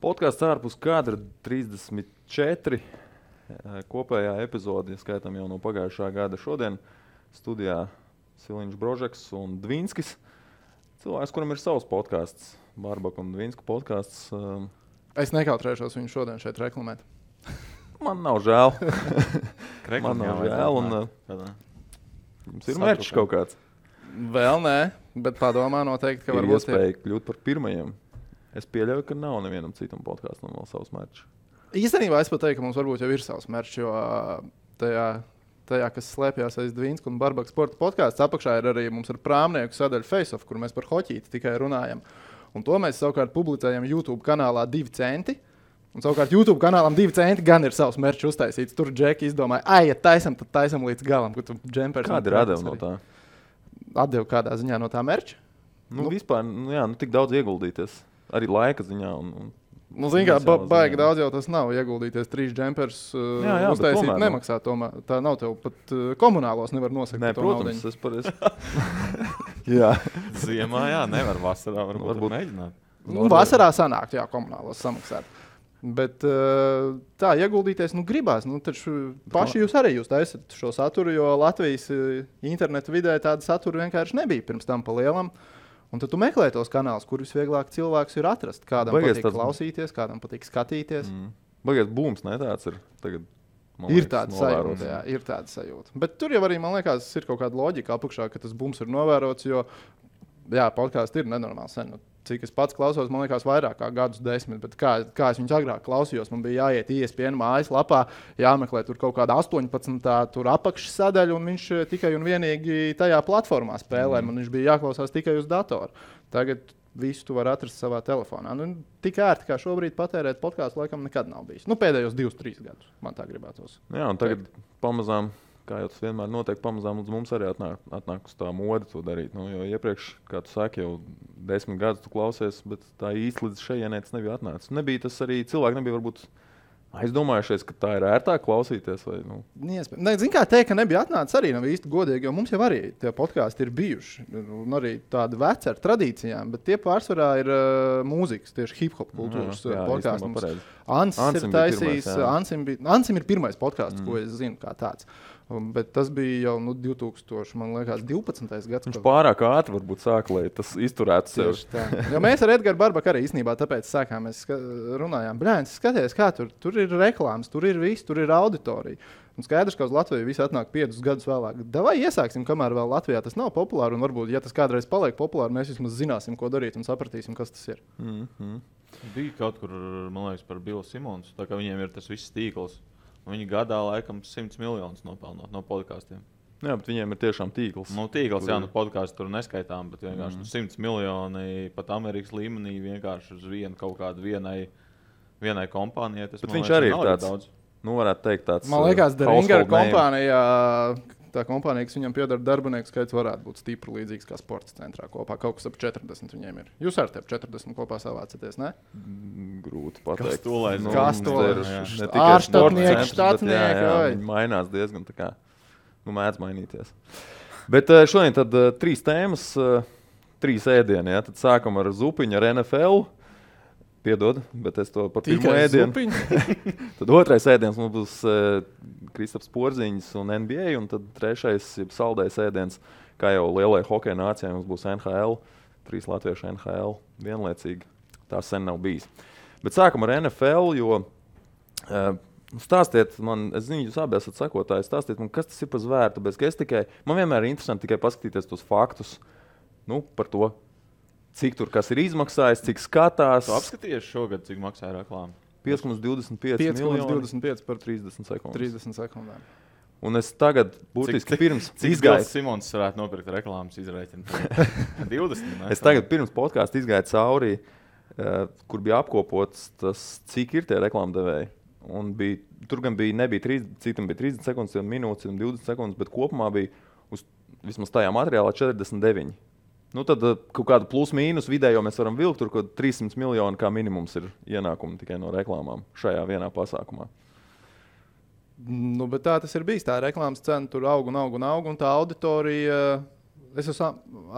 Podkāsts ārpus kadra 34. Kopējā epizode, skaitām jau no pagājušā gada šodien. Studijā Siliņš Brožeks un Dvinskis. Cilvēks, kuram ir savs podkāsts, Barbaka un Dvinska podkāsts. Es nekautrēšos viņu šodien šeit reklamēt. Man nav žēl. Man nav žēl. Jums ir merčs kaut kāds? Vēl nē, bet padomā noteikti, ka varbūt iespēja kļūt par pirmajiem. Es pieļauju, ka nav nevienam citam podkāstam vēl savs merčs. Īstenībā es pat teiktu, ka mums varbūt jau ir savs merčs, jo tajā kas slēpjās aiz Dvinska un Barbaka sporta podkāsts, apakšā ir arī mums ar prāmnieku sadaļu Face-Off, kur mēs par hoķīti tikai runājam. Un to mēs savukārt publicējam YouTube kanālā 2 centi. Un savukārt YouTube kanālam 2 centi gan ir savs merčs uztaisīts. Tur Džeki izdomāja, ja taisam, tad taisam līdz galam. Kāda ir atdeva no tā? Atdeva kādā ziņā no tā merča? Vispār, tik daudz ieguldīties. Arī laika ziņā. Zini kā, baigi daudz jau tas nav. Ieguldīties 3 džempers uztaisīt nemaksā. Tomēr. Tā nav tev pat komunālos nevar nosakt. Nē, protams, es pareizi. Jā. Ziemā, nevar vasarā varbūt mēģināt. Vasarā sanākt, komunālos samaksāt. Bet tā, ieguldīties, gribās. Taču paši jūs taisat šo saturu, jo Latvijas internetu vidē tāda satura vienkārši nebija pirms tam pa lielam. Un tad tu meklē tos kanālus, kur visvieglāk cilvēks ir atrast. Kādam patīk klausīties, kādam patīk skatīties. Bagies būms, ne tāds ir tagad. Ir tāda sajūta, ir tāda sajūta. Bet tur jau arī, man liekas, ir kaut kāda loģika apakšā, ka tas būms ir novērots, jo, podkāsts ir nenormāli sen. Cik es pats klausos, man liekas, vairāk kā gadus 10, bet kā es viņus agrāk klausījos, man bija jāiet ESPN mājaslapā, jāmeklē tur kaut kāda 18. tur apakšsadaļa, un viņš tikai un vienīgi tajā platformā spēlē, man viņš bija jāklausās tikai uz datoru. Tagad visu tu vari atrast savā telefonā. Tik ērti, kā šobrīd patērēt podkāstu, laikam nekad nav bijis. Pēdējos 2-3 gadus man tā gribētos. Jā, un tagad pamazām, kā jau tas vienmēr notiek, pamazām līdz mums arī atnāk uz tā mode to darīt. Jo iepriekš, kā tu saki, jau 10 gadus tu klausies, bet tā īsti līdz šejienē tas nebija atnācis. Nebija tas arī, cilvēki nebija varbūt aizdomājušies, ka tā ir ērtāk klausīties. Vai, Zini, kā teikt, ka nebija atnācis arī nav īsti godīgi, jo mums jau arī tie podkāsti ir bijuši. Un arī tādi veci ar tradīcijām, bet tie pārsvarā ir mūzikas, tieši hip-hop kultūras podkāsti. Ansis ir taisījis, Ansim ir pirmais podkāsts, ko es zinu kā tāds. Bet tas bija jau 2012. gads. Viņš pārāk ātri varbūt sāka, lai tas izturētu sevi. Jo mēs ar Edgars Barbaku arī īstenībā tāpēc sākām, mēs runājām, skaties, kā tur ir reklāmas, tur ir viss, tur ir auditorija. Un skaidrs, ka uz Latviju viss atnāk 5 gadus vēlāk. Davai iesāksim, kamēr vēl Latvijā tas nav populāri, un varbūt, ja tas kādreiz paliek populāri, mēs vismaz zināsim, ko darīt un sapratīsim, kas tas ir. Bija kaut kur, man liekas, par Billu Simons, tā kā viņiem ir tas viss tīkls. Viņi gadā laikam 100 miljonus nopelnot no podkāstiem. Jā, bet viņiem ir tiešām tīkls. Tīkls, podkāsts tur neskaitām, bet vienkārši 100 miljoni pat Amerikas līmenī vienkārši uz kaut kādu vienai kompānijai. Bet viņš arī ir tāds, daudz. Varētu teikt tāds. Man liekas, Deringer kompānijā, tā kompānija, kas viņam piedara darbinieku skaits, varētu būt stipri līdzīgs kā sporta centrā kopā. Kaut kas ap 40 viņiem ir. Jūs ar tevi 40 kopā savācaties, ne? Grūti pateikt. Kas to ir? Ārštatnieki, štatnieki. Viņi mainās diezgan tā kā. Mēdz mainīties. Bet šodien tad 3 tēmas, 3 ēdieni. Tad sākam ar zupiņu, ar NFL. Piedod, bet es to par pirmo ēdienu. Tad otrais ēdiens mums būs Kristaps Porziņš un NBA, un tad trešais saldējs ēdiens, kā jau lielai hokeja nācijai, mums būs NHL, 3 latviešu NHL vienlaicīgi. Tā sen nav bijis. Bet sākam ar NFL, jo stāstiet man, es zinu, jūs abi esat sekotāji, stāstiet man, kas tas ir par zvēru, tāpēc, man vienmēr ir interesanti tikai paskatīties tos faktus, par to. Cik tur kas ir izmaksājis, cik skatās. Tu apskatījies šogad, cik maksāja reklāma? 5,25 miljoni 5,25 par 30 sekundes. 30 sekundēm. Un es tagad būtiski pirms izgāju. Cik Simons varētu nopirkt reklāmas izrēķinu? 20? Ne? Es tagad pirms podkāsta izgāju cauri, kur bija apkopots tas, cik ir tie reklāmdevēji. Un tur gan nebija 30 sekundes, minūtes un 20 sekundes, bet kopumā bija vismaz tajā materiālā 49. Tad kaut kādu plus-mīnus vidējo mēs varam vilkt, tur kaut 300 miljoni kā minimums ir ienākumi tikai no reklāmām šajā vienā pasākumā. Bet tā tas ir bijis. Tā reklāmas cena tur aug, un tā auditorija Es esmu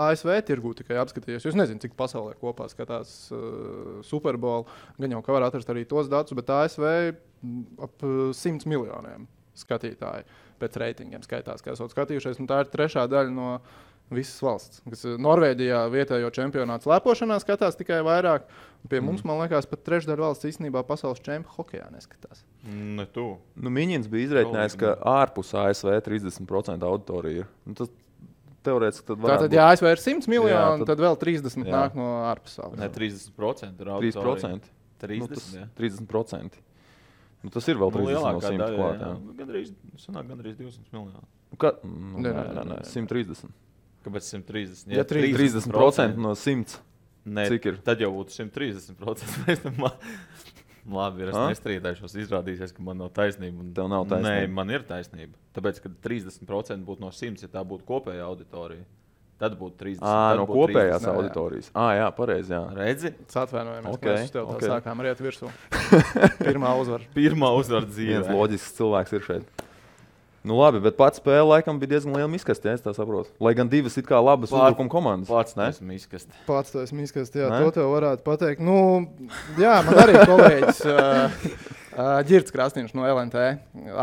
ASV tirgū tikai apskatījies. Es nezinu, cik pasaulē kopā skatās Super Bowl. Gan jau ka var atrast arī tos datus, bet ASV ap 100 miljoniem skatītāji pēc reitingiem skaitās, kā esot skatījušies. Un tā ir trešā daļa no visas valsts. Kas Norvēģijā vietējo čempionātu slēpošanā skatās tikai vairāk. Pie mums, man liekas, pat trešdaļa valsts īstenībā pasaules čempionu hokejā neskatās. Ne tu. Nu, Miņins bija izreikinājis, ka ārpus ASV 30% auditorija ir. Nu, tas teorētiski tad varētu Tātad, ja ASV ir 100 miljoni, tad vēl 30 nāk no ārpasaules. Ne, 30% ir auditorija. 3%? 30%. Nu, tas ir vēl 30 no 100 klāt. Gandrīz 200 miljoni. Nē, 130. Kāpēc 130? Ja 30% no 100. Nē, cik ir? Tad jau būtu 130%. Labi, es nestrīdēšos. Izrādīsies, ka man nav taisnība. Tev nav taisnība. Nē, man ir taisnība. Tāpēc, ka 30% būtu no 100, ja tā būtu kopējā auditorija. Tad būtu 30. No kopējās auditorijas. Jā, pareizi. Jā. Redzi? Atvainojamies, Okay, mēs tev okay. sākām riet virsū. Pirmā uzvara. Pirmā uzvara dzīvē. Viens loģisks cilvēks ir šeit. Nu labi, bet pats spēle laikam bija diezgan liela miskasti, ja es tā saprotu. Lai gan divas it kā labas uzbrukuma komandas. Pats esmu miskasti. Pats to esmu miskasti, jā, to tev varētu pateikt. Nu, jā, man arī kolēģis Ģirds Krasniņš no LNT,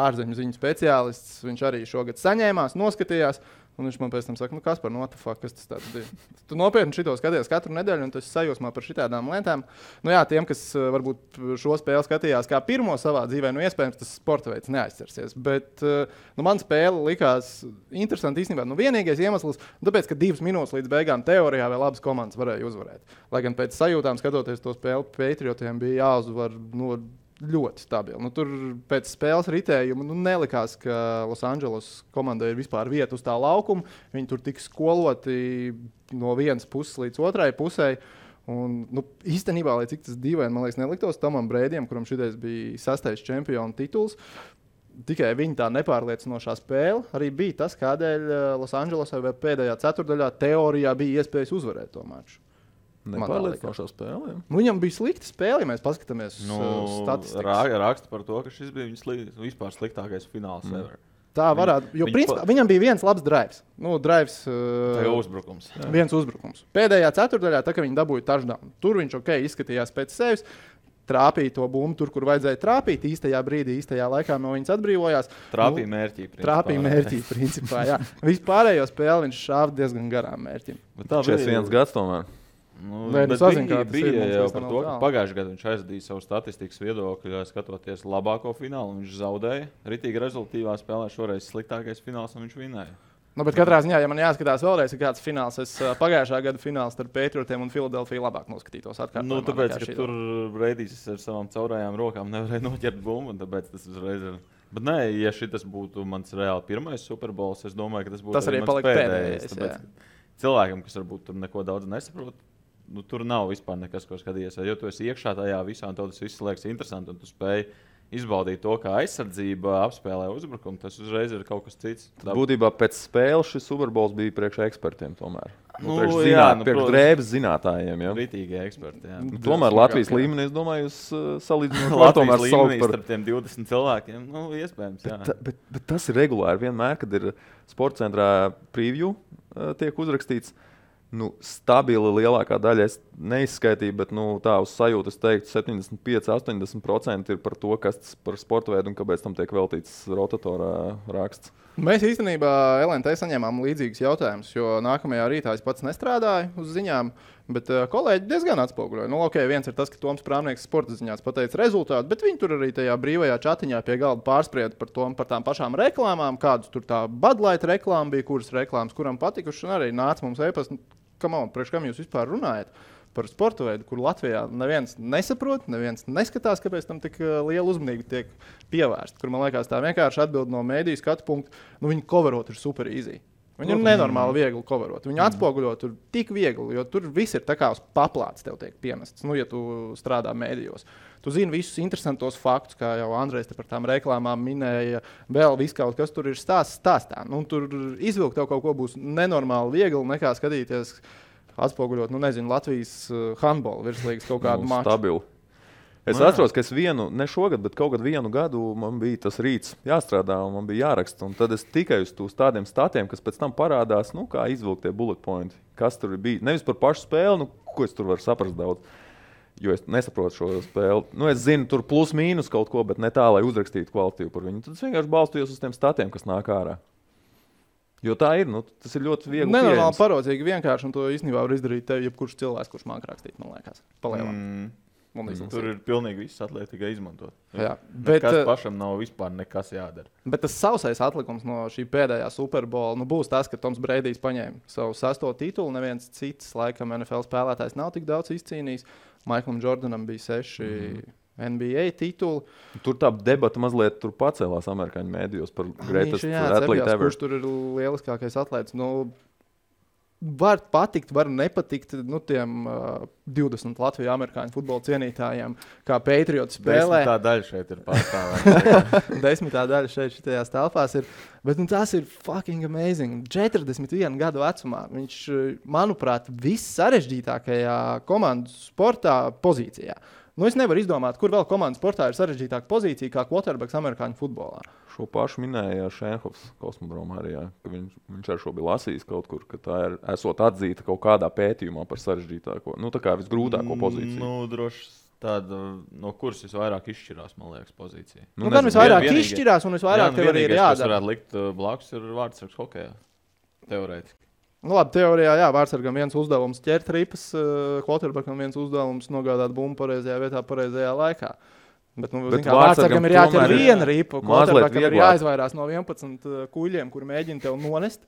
ārzemju ziņu speciālists. Viņš arī šogad saņēmās, noskatījās. Un viņš man pēc tam saka, Kaspar, kas tas tāds bija? Tu nopietni šito skaties katru nedēļu, un tu esi sajūsmā par šitādām lietām. Nu jā, tiem, kas varbūt šo spēli skatījās kā pirmo savā dzīvē, iespējams, tas sporta veids neaizcersies. Bet man spēle likās interesanti īstenībā. Vienīgais iemesls, tāpēc, ka 2 minūtes līdz beigām teorijā vēl abas komandas varēja uzvarēt. Lai gan pēc sajūtām, skatoties to spēli, Patriotiem bija jāuzvar ļoti stabili. Tur pēc spēles ritējuma nelikās, ka Losandželos komandai ir vispār vieta uz tā laukuma. Viņi tur tika skoloti no vienas puses līdz otrai pusē. Un, īstenībā, lai cik tas dīvaini, man liekas, neliktos Tomam Brēdijam, kuram šitais bija 6. čempionu tituls. Tikai viņa tā nepārliecinošā spēle arī bija tas, kādēļ Losandželosai vai pēdējā ceturdaļā teorijā bija iespējas uzvarēt to maču. Nepārliecinošā spēle. Viņam bija slikta spēle, ja mēs paskatāmies uz statistikas. Raksta par to, ka šis bija viņas vispār sliktākais fināls ever. Tā varētu, jo principā viņam bija viens labs drives. Uzbrukums. Viens uzbrukums. Pēdējā ceturdaļā, tā, kad viņi dabūja touchdown, tur viņš izskatījās pēc sevis. Trāpīja to bumbu tur, kur vajadzēja trāpīt. Īstajā brīdī, īstajā laikā no viņas atbrīvojās. Trāpīja mērķī. Principā, jā. Vispārējo spēli viņš šāva diezgan garām mērķim. Tā bija 1 gads tomēr. Bija jau par to, ka pagājušajā gadā viņš aizdīja savu statistikas viedokļu, skatoties labāko finālu. Viņš zaudēja. Ritīgi rezultīvā spēlē šoreiz sliktākais fināls, un viņš vinēja. Bet katrā ziņā, ja man jāskatās vēlreiz, kāds fināls, es pagājušā gada fināls starp Patriotiem un Filadelfiju labāk noskatītos. Tāpēc, ka tur Brēdijs ar savām caurajām rokām nevarēja noķert bumbu, un tāpēc tas uzreiz ir. Bet nē, ja šis būtu mans reāli pirmais Super Bowls, es domāju, ka tas būtu arī mans pēdējais. Cilvēkam, kas varbūt tur neko daudz nesaprot, tur nav vispār nekas, ko skatījies. Jo tu esi iekšā tajā visā, un tev tas viss liekas interesanti, un tu spēj izbaudīt to, kā aizsardzība apspēlē uzbrukumu. Tas uzreiz ir kaut kas cits. Būtībā pēc spēles šis Super Bowls bija priekš ekspertiem tomēr. Priekš drēbes zinātājiem. Ritīgi eksperti. Tomēr Latvijas līmenī, es domāju, jūs salīdzināt Latvijas līmenī starp tiem 20 cilvēkiem. Iespējams, jā. Bet tas ir regulāri vienmēr, kad ir sporta centrā preview tiek uzrakstīts. Stabili lielākā daļa es neizskaitīju, bet tā uz sajūtu es teiktu 75–80% ir par to, kas tas par sporta veidu un kāpēc tam tiek veltīts rotatorā raksts. Mēs īstenībā LNT saņēmām līdzīgus jautājumus, jo nākamajā rītā es pats nestrādāju uz ziņām, bet kolēģi diezgan atspoguļoja. Viens ir tas, ka Toms Prāvnieks sporta ziņās pateica rezultātu, bet viņi tur arī tajā brīvajā čatiņā pie galda pārsprieda par tām pašām reklāmām, kādas tur tā Bud Light reklāma bija, kuras reklāmas kuram patikušas, un arī nāca mums e-pasta. Priekš kam jūs vispār runājat par sporta veidu, kur Latvijā neviens nesaprot, neviens neskatās, kāpēc tam tik liela uzmanība tiek pievērsta. Kur man liekas, tā vienkārši atbild no mēdīju skatu punktu, viņi coverot ir super easy. Viņi ir nenormāli viegli coverot. Viņi atspoguļo tur tik viegli, jo tur viss ir tā kā uz paplātes tev tiek piemests, ja tu strādā mēdījos. Tu zini visus interesantos faktus, kā jau Andrejs par tām reklāmām minēja, vēl viss kaut kas tur ir stāstā. Tur izvilkt tev kaut ko būs nenormāli viegli, nekā skatīties, atspoguļot, Latvijas handbola virslīgas kaut kādu maču. Stabilu. Es atceros, ka ne šogad, bet kaut kad vienu gadu man bija tas rīts jāstrādā un man bija jāraksta. Un tad es tikai uz tādiem statiem, kas pēc tam parādās, kā izvilkt tie bullet pointi, kas tur bija. Nevis par pašu spēli, ko es tur varu saprast daudz, jo es nesaprotu šo spēli. Es zinu, tur plus mīnus kaut ko, bet ne tā, lai uzrakstītu kvalitīvu par viņu. Tad es vienkārši balstījos uz tiem statiem, kas nāk ārā. Jo tā ir, tas ir ļoti viegli. Nenormāli parodzīgi vienkārši, un to īstenībā var izdarīt tev jebkurš cilvēks, kurš māk rakstīt, man liekas, palielam. Tur ir pilnīgi viss atliek tikai izmantot. Jā, bet kas pašam nav vispār nekas jādara. Bet tas sausais atlikums no šī pēdējā Super Bowl būs tas, ka Toms Breidijs paņēma savu 6. titulu. Neviens cits, laikam, NFL spēlētājs nav tik daudz izcīnījis. Maiklam Jordanam bija 6 NBA tituli. Tur tā debata mazliet pacēlās amerikāņu mēdījos par greatest athlete ever. Kurš tur ir lieliskākais atlēts? Var patikt, var nepatikt tiem 20 Latviju amerikāņu futbola cienītājiem, kā Patriots spēlē. 10. daļa šeit ir pārstāvēta. 10. daļa šajās telpās ir. Bet tas ir fucking amazing. 41 gadu vecumā viņš, manuprāt, viss sarežģītākajā komandu sportā pozīcijā. Es nevaru izdomāt, kur vēl komandas sportā ir sarežģītāka pozīcija kā quarterbacks amerikāņu futbolā. Šo pašu minēja Šenhofs kosmodromā arī, ka viņš ar šo bija lasījis kaut kur, ka tā ir esot atzīta kaut kādā pētījumā par sarežģītāko, tā kā visgrūtāko pozīciju. Droši tāda, no kuras visvairāk izšķirās, man liekas, pozīcija. Gan visvairāk izšķirās un visvairāk tev arī ir jādara. Kas varētu likt blakus ir vārdsargs hokejā, teorētiski. Labi, teorijā, jā, vārdsargam viens uzdevums ķert ripas, quarterbackam viens uzdevums nogādāt bumbu pareizajā vietā, pareizajā laikā. Bet vārdsargam ir jāķer viena ripa, quarterbackam ir jāizvairās no 11 kuļiem, kur mēģina tev nonest.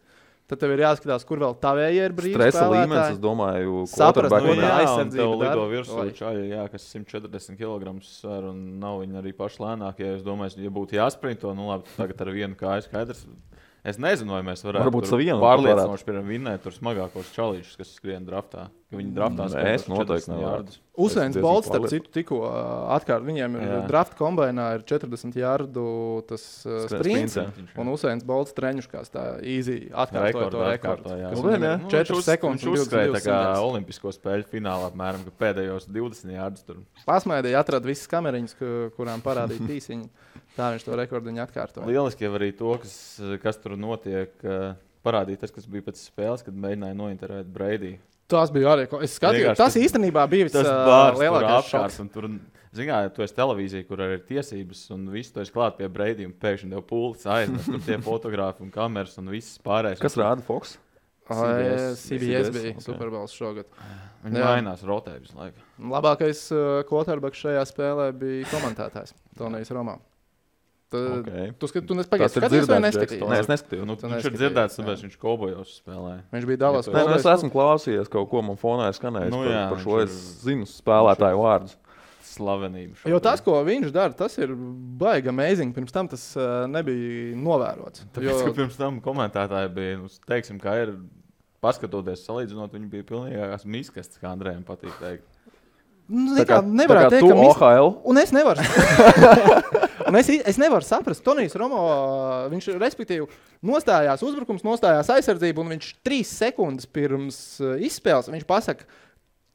Tad tev ir jāskatās, kur vēl tavējie ir brīvi stresa līmenis, es domāju, quarterbackam ir aizsardzība. Tev lido virsū čaļi, kas 140 kg svar un nav viņi arī paši lēnākie. Es domāju, ja būtu jāsprinto, labi, tagad ar vienu kāju skaidrs. Es nezinu, vai mēs varētu pārliecinoši vinnēt tur smagākos čalīšus, kas skrien draftā. Viņi draftā spēlēs 40 jārdu. Usains Bolts, starp citu, tikko atkārt. Viņiem ir draft kombainā ir 40 jārdu tas sprints. Un Usains Bolts treņuškās tā easy atkārtoja to rekordu. 4 sekundes un 22 kā olimpisko spēļu finālā apmēram, ka pēdējos 20 jārdus tur. Pasmaidīja, atrada visas kameriņas, kurām parādīja tīsiņu. Tā viņš to rekordiņu atkārtoja. Lieliski jau arī to, kas tur notiek, parādīja tas, kas bija pēc spēles, kad mēģināja nointervēt Breidiju. Tas bija arī. Es skatījos, tas īstenībā bija vislielākais šoks. Tur, zini, tu esi televīzija, kur arī ir tiesības, un visu tu esi klāt pie Breidija, un pēkšņi tev pūlis aiznes, tur tie fotografi un kameras un viss pārējais. Kas rāda Fox? CBS bija Super Bowls šogad. Viņi mainās, rotē visu laiku. Labākais quarterbacks šajā spēlē bija komentētājs Tonijs Romā. Tu skaties vai neskatījies? Nē, es neskatījos. Viņš ir dzirdēts, tāpēc viņš Kaubojos spēlēja. Viņš bija Dallas. Es esmu klausījies kaut ko, man fonā ir skanējis par šo. Es zinu spēlētāju vārdus. Slavenību. Jo tas, ko viņš dara, tas ir baigi amazing. Pirms tam tas nebija novērots. Tāpēc, ka pirms tam komentētāji bija, teiksim, kā ir, paskatoties, salīdzinot, viņi bija pilnīgākās miskastes, kā Andrejam patīk teikt. Nevarētu teikt, ka OHL. Un es nevaru. Es nevaru saprast, Tonijs Romo, viņš respektīvi nostājās uzbrukums, nostājās aizsardzību, un viņš 3 sekundes pirms izspēles, viņš pasaka,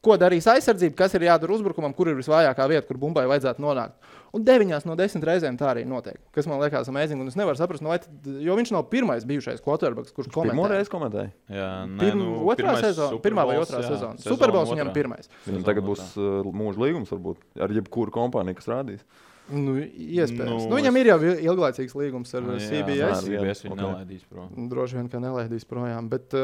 ko darīs aizsardzība, kas ir jādara uzbrukumam, kur ir visvājākā vieta, kur bumbai vajadzētu nonākt. Un 9 no 10 reizēm tā arī notiek, kas man liekas amazing, un es nevaru saprast, jo viņš nav pirmais bijušais quarterbacks, kurš komentē. Pirmo reizi komentēja? Jā, pirmā vai otrā sezona. Super Bowls viņam pirmais. Viņam tagad būs mūža līgums, varbūt, ar jebkuru kompāniju, kas rādīs. Iespējams. Viņam ir jau ilglaicīgs līgums ar CBS. CBS viņu nelaidīs prom. Droši vien, ka nelaidīs projām. Bet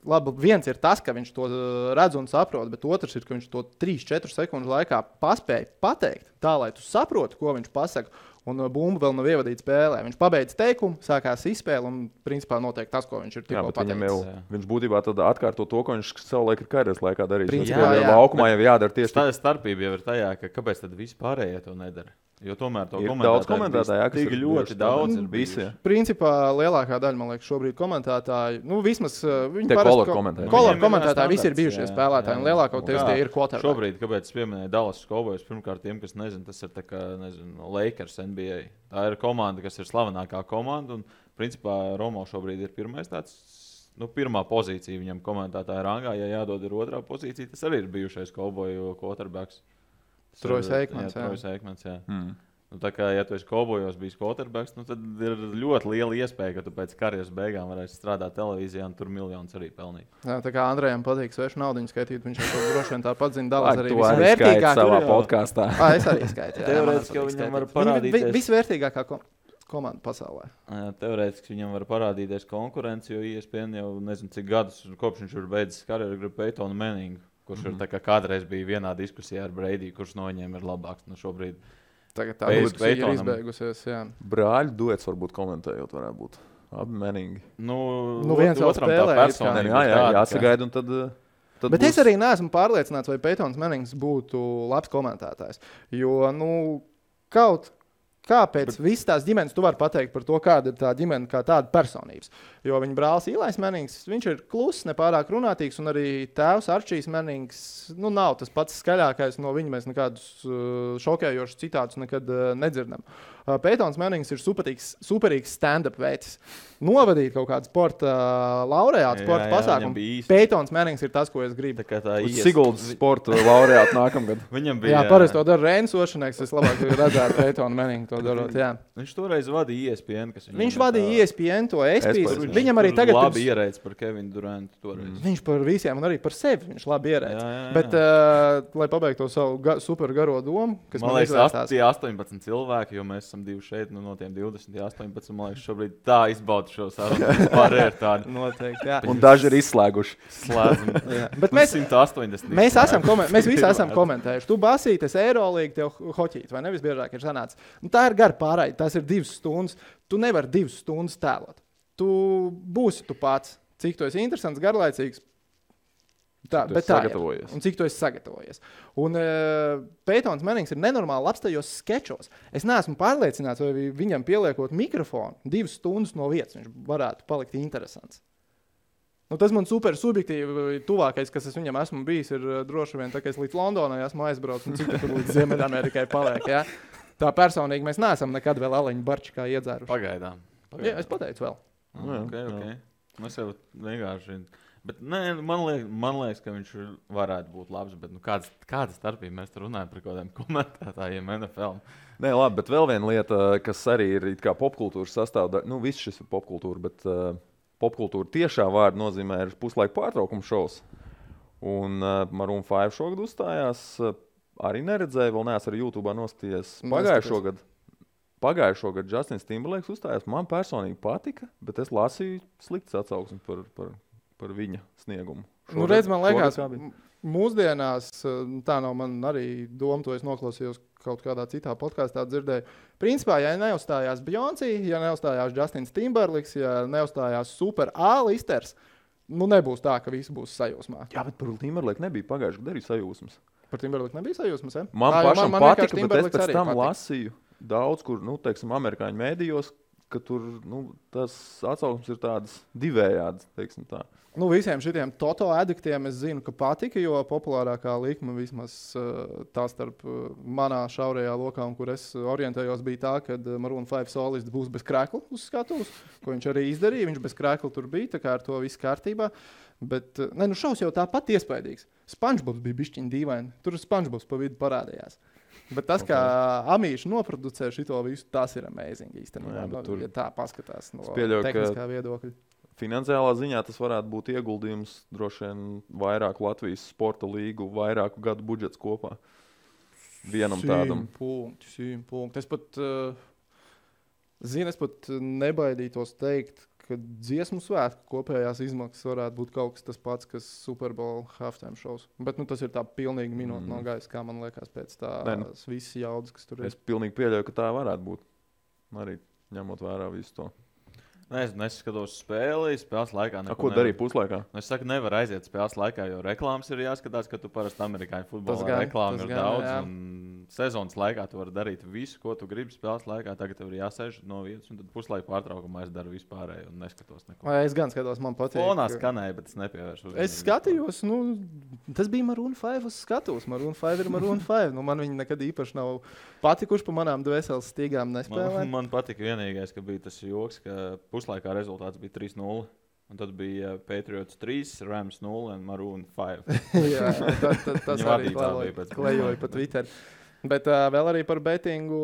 labi, viens ir tas, ka viņš to redz un saprot, bet otrs ir, ka viņš to 3-4 sekundžu laikā paspēja pateikt tā, lai tu saproti, ko viņš pasaka. Un bumba vēl nav ievadīta spēlē. Viņš pabeidz teikumu, sākās izspēle un principā notiek tas, ko viņš ir tikko pateicis. Viņš būtībā tad atkārto to, ko viņš savulaik ir karjeras laikā darījis. Laukumā jau jādara tieši tā. Starpība jau ir tajā, ka kāpēc tad vispārējie to nedara? Jo tomēr to komentētāji, kas ir ļoti daudz ir visi. Principā lielākā daļa, man liekas, šobrīd komentētāji, vismaz viņi kolor komentētāji visi ir bijušie spēlētāji, un lielākoties tie ir quarterbacki. Šobrīd, kāpēc es pieminēju Dallas Cowboys, pirmkārt tiem, kas nezin, tas ir tā kā, Lakers NBA. Tā ir komanda, kas ir slavenākā komanda, un principā Romo šobrīd ir pirmais tāds, pirmā pozīcija viņam komentētāja rangā, ja jādod ir otrā pozīcija, tas arī ir bijušais Cowboyu quarterbacks. Trojas Eikmans, Trojas Eikmans, jā. Nu, tā kā, ja tu esi Cowboyos bijis quarterbacks, nu, tad ir ļoti liela iespēja, ka tu pēc karjeras beigām varēsi strādāt televīzijā un tur miljonus arī pelnīt. Jā, tā kā Andrejam patīk svešu naudiņu skaitīt, viņš jau to droši vien tāpat zina, dalās arī visvērtīgāk savā podkāstā. Es arī skaitu. Teorētiski viņam var parādīties. Visvērtīgākā komanda pasaulē. Teorētiski viņam var parādīties konkurence, jo ESPN jau nezinu cik gadus, kopš viņš ir beidzis karjeru, grib Peytonu Manningu, kurš ir tā kā kādreiz bija vienā diskusijā ar Brady, kurš no viņiem ir labāks. Nu, šobrīd tagad tā diskusija ir izbeigusies, jā. Brāļu duets varbūt komentējot varētu būt. Abi Manningi. Nu viens vēl spēlē. Jāsagaida un tad bet būs... es arī neesmu pārliecināts, vai Peytons Mannings būtu labs komentētājs. Jo, kāpēc visas tās ģimenes tu vari pateikt par to, kāda ir tā ģimene, kā tāda personības. Jo viņa brālis Īlais Mannings, viņš ir kluss, nepārāk runātīgs, un arī tēvs Arčijs Mannings, nav tas pats skaļākais, no viņa mēs nekādus šokējošus citātus nekad nedzirdam. Peytons Mannings ir superīgs stand-up veids. Novadīt kaut kādu sporta laureātu, sporta pasākumu. Peytons Mannings ir tas, ko es gribu. Siguldas sporta laureātu nākamgad. Viņam bija... Jā, parasti to dara Reinis Ošaneks, es labāk redzētu Peytonu Manningu to darot, jā. Viņš toreiz vadīja ESPN, kas viņš vadīja ESPN, to ESPN. Viņam arī tagad... labi ierēdz par Kevinu Durantu toreiz. Viņš par visiem un arī par sevi viņš labi ierēdz. Bet, lai pabeigtu to savu super garo domu, kas man liekas, tie 18 cilvēki, jo mēs esam divi šeit, no tiem 20, 18, man liekas, šobrīd tā izbauda šo sarunu. Pārēr tādu. Noteikti, jā. Un daži ir izslēguši. Slēdzam. Bet 180. Mēs visi esam komentējuši. Tu basītes Eirolīgu, tev hoķīt, vai nevis biežāk ir sanācis. Tā ir gara pārraide, tās ir 2 stundas. Tu nevari 2 stundas tēlot. Tu būsi tu pats, cik tu esi interesants, garlaicīgs. Bet tā ir. Un cik tu esi sagatavojies. Un Peytons Mannings ir nenormāli labs tajos skečos. Es neesmu pārliecināts, vai viņam pieliekot mikrofonu 2 stundas no vietas, viņš varētu palikt interesants. Tas man super subjektīvi tuvākais, kas es viņam esmu bijis, ir droši vien tā, ka es līdz Londonai esmu aizbraucis un cik tur līdz Ziemeļamerikai paliek. Ja? Tā personīgi mēs neesam nekad vēl Aleņu Barčikā iedzēruši. Pagaidām. Jā, es pateicu vēl. Okay. Mēs jau vienkārši... Bet nē, man liekas, ka viņš varētu būt labs, bet kāda starpība mēs tur runājam par kaut kādiem komentētājiem NFL? Nē, labi, bet vēl viena lieta, kas arī ir kā popkultūras sastāvdaļa, viss šis ir popkultūra, bet popkultūra tiešā vārda nozīmē ir puslaika pārtraukuma šovs. Un Maroon 5 šogad uzstājās, arī neredzēju, vēl neesmu arī YouTube'ā noskatījies pagājušo gadu Justins Timberlakes uzstājās. Man personīgi patika, bet es lasīju sliktas atsauksmes par viņa sniegumu. Redz, man liekas, mūsdienās, tā nav man arī doma, to es noklausījos kaut kādā citā podkāstā dzirdēju. Principā, ja neuzstājās Beyoncé, ja neuzstājās Justins Timberlakes, ja neuzstājās Super A-listers, nebūs tā, ka visi būs sajūsmā. Jā, bet par Timberlake nebija pagājušajā gadā arī sajūsmas. Par Timberlake nebija sajūsmas, ja? Man pašam patika, bet es pēc tam lasīju daudz, kur, teiksim, amerikāņu mēdījos, ka tur, tas atsauksmes ir tādas divējādas, teiksim tā. Visiem šitiem Toto adiktiem es zinu, ka patika, jo populārākā likme vismaz tā starp manā šaurajā lokā, un kur es orientējos, bija tā, ka Maroon 5 solists būs bez krekla uz skatuves, ko viņš arī izdarīja. Viņš bez krekla tur bija, tā kā ar to viss kārtībā. Bet, šaus jau tāpat iespaidīgs. SpongeBobs bija bišķiņ dīvaini. Tur SpongeBobs pa vidu parādījās. Bet tas, kā Amīši noproducē šito visu, tas ir amazing īstenībā. Ja tā paskatās no tehniskā viedokļa. Finansiālā ziņā tas varētu būt ieguldījums droši vien vairāk Latvijas sporta līgu, vairāku gadu budžets kopā. Vienam tādam. 100 punkti. Es pat nebaidītos teikt, ka dziesmu svētku kopējās izmaksas varētu būt kaut kas tas pats, kas Super Bowl halftime shows. Bet tas ir tā pilnīgi minūte no gaisa, kā man liekas pēc tās visas jaudas, kas tur ir. Es pilnīgi pieļauju, ka tā varētu būt. Arī ņemot vērā visu to. Es neskatos spēles laikā. Ko darīja puslaikā? Es saku, nevar aiziet spēles laikā, jo reklāmas ir jāskatās, ka tu parasti amerikāņu futbolā reklāmas ir daudz. Jā. Un sezonas laikā tu vari darīt visu, ko tu gribi spēles laikā. Tagad tev ir jāsēž no vietas, un tad puslaika pārtraukumā es daru vispārēju un neskatos neko. Es gan skatos, man patīk. Fonā skanēja, bet es nepievēršu uzmanību. Es skatījos, tas bija Maroon 5 uz skatuves. Maroon 5 ir Maroon 5. Man viņi nekad īpaši nav patikuši pa manām dvēseles stīgām nespēlē. Man patika vienīgais, ka bija tas joks, ka puslaikā rezultāts bija 3-0. Un tad bija Patriots 3, Rams 0 un Maroon 5. Jā, tas arī klejoja pa Twitter. Bet vēl arī par betingu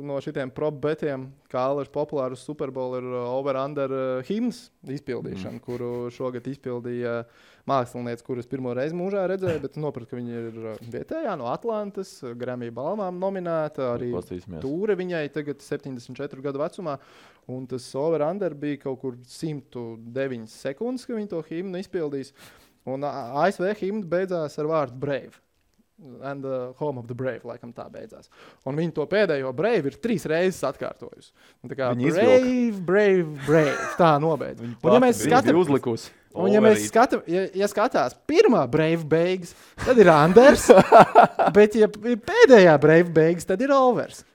no šitiem prop betiem, kā Alers populārus Super Bowl ir over-under himnas izpildīšana, kuru šogad izpildīja mākslinieci, kurus pirmo reizi mūžā redzēju, bet noprat, ka viņi ir vietējā no Atlantas, Grammy balvām nominēta, arī tūre viņai tagad 74 gadu vecumā, un tas over-under bija kaut kur 109 sekundes, ka viņi to himnu izpildīs, un ASV himna beidzās ar vārdu Brave. And the home of the brave, laikam tā beidzās. Un viņi to pēdējo brave ir 3 reizes atkārtojusi. Tā kā brave, tā nobeidz. Un ja mēs uzlikusi. Un ja mēs skatās pirmā brave beigas, tad ir unders, bet ja pēdējā brave beigas, tad ir overs.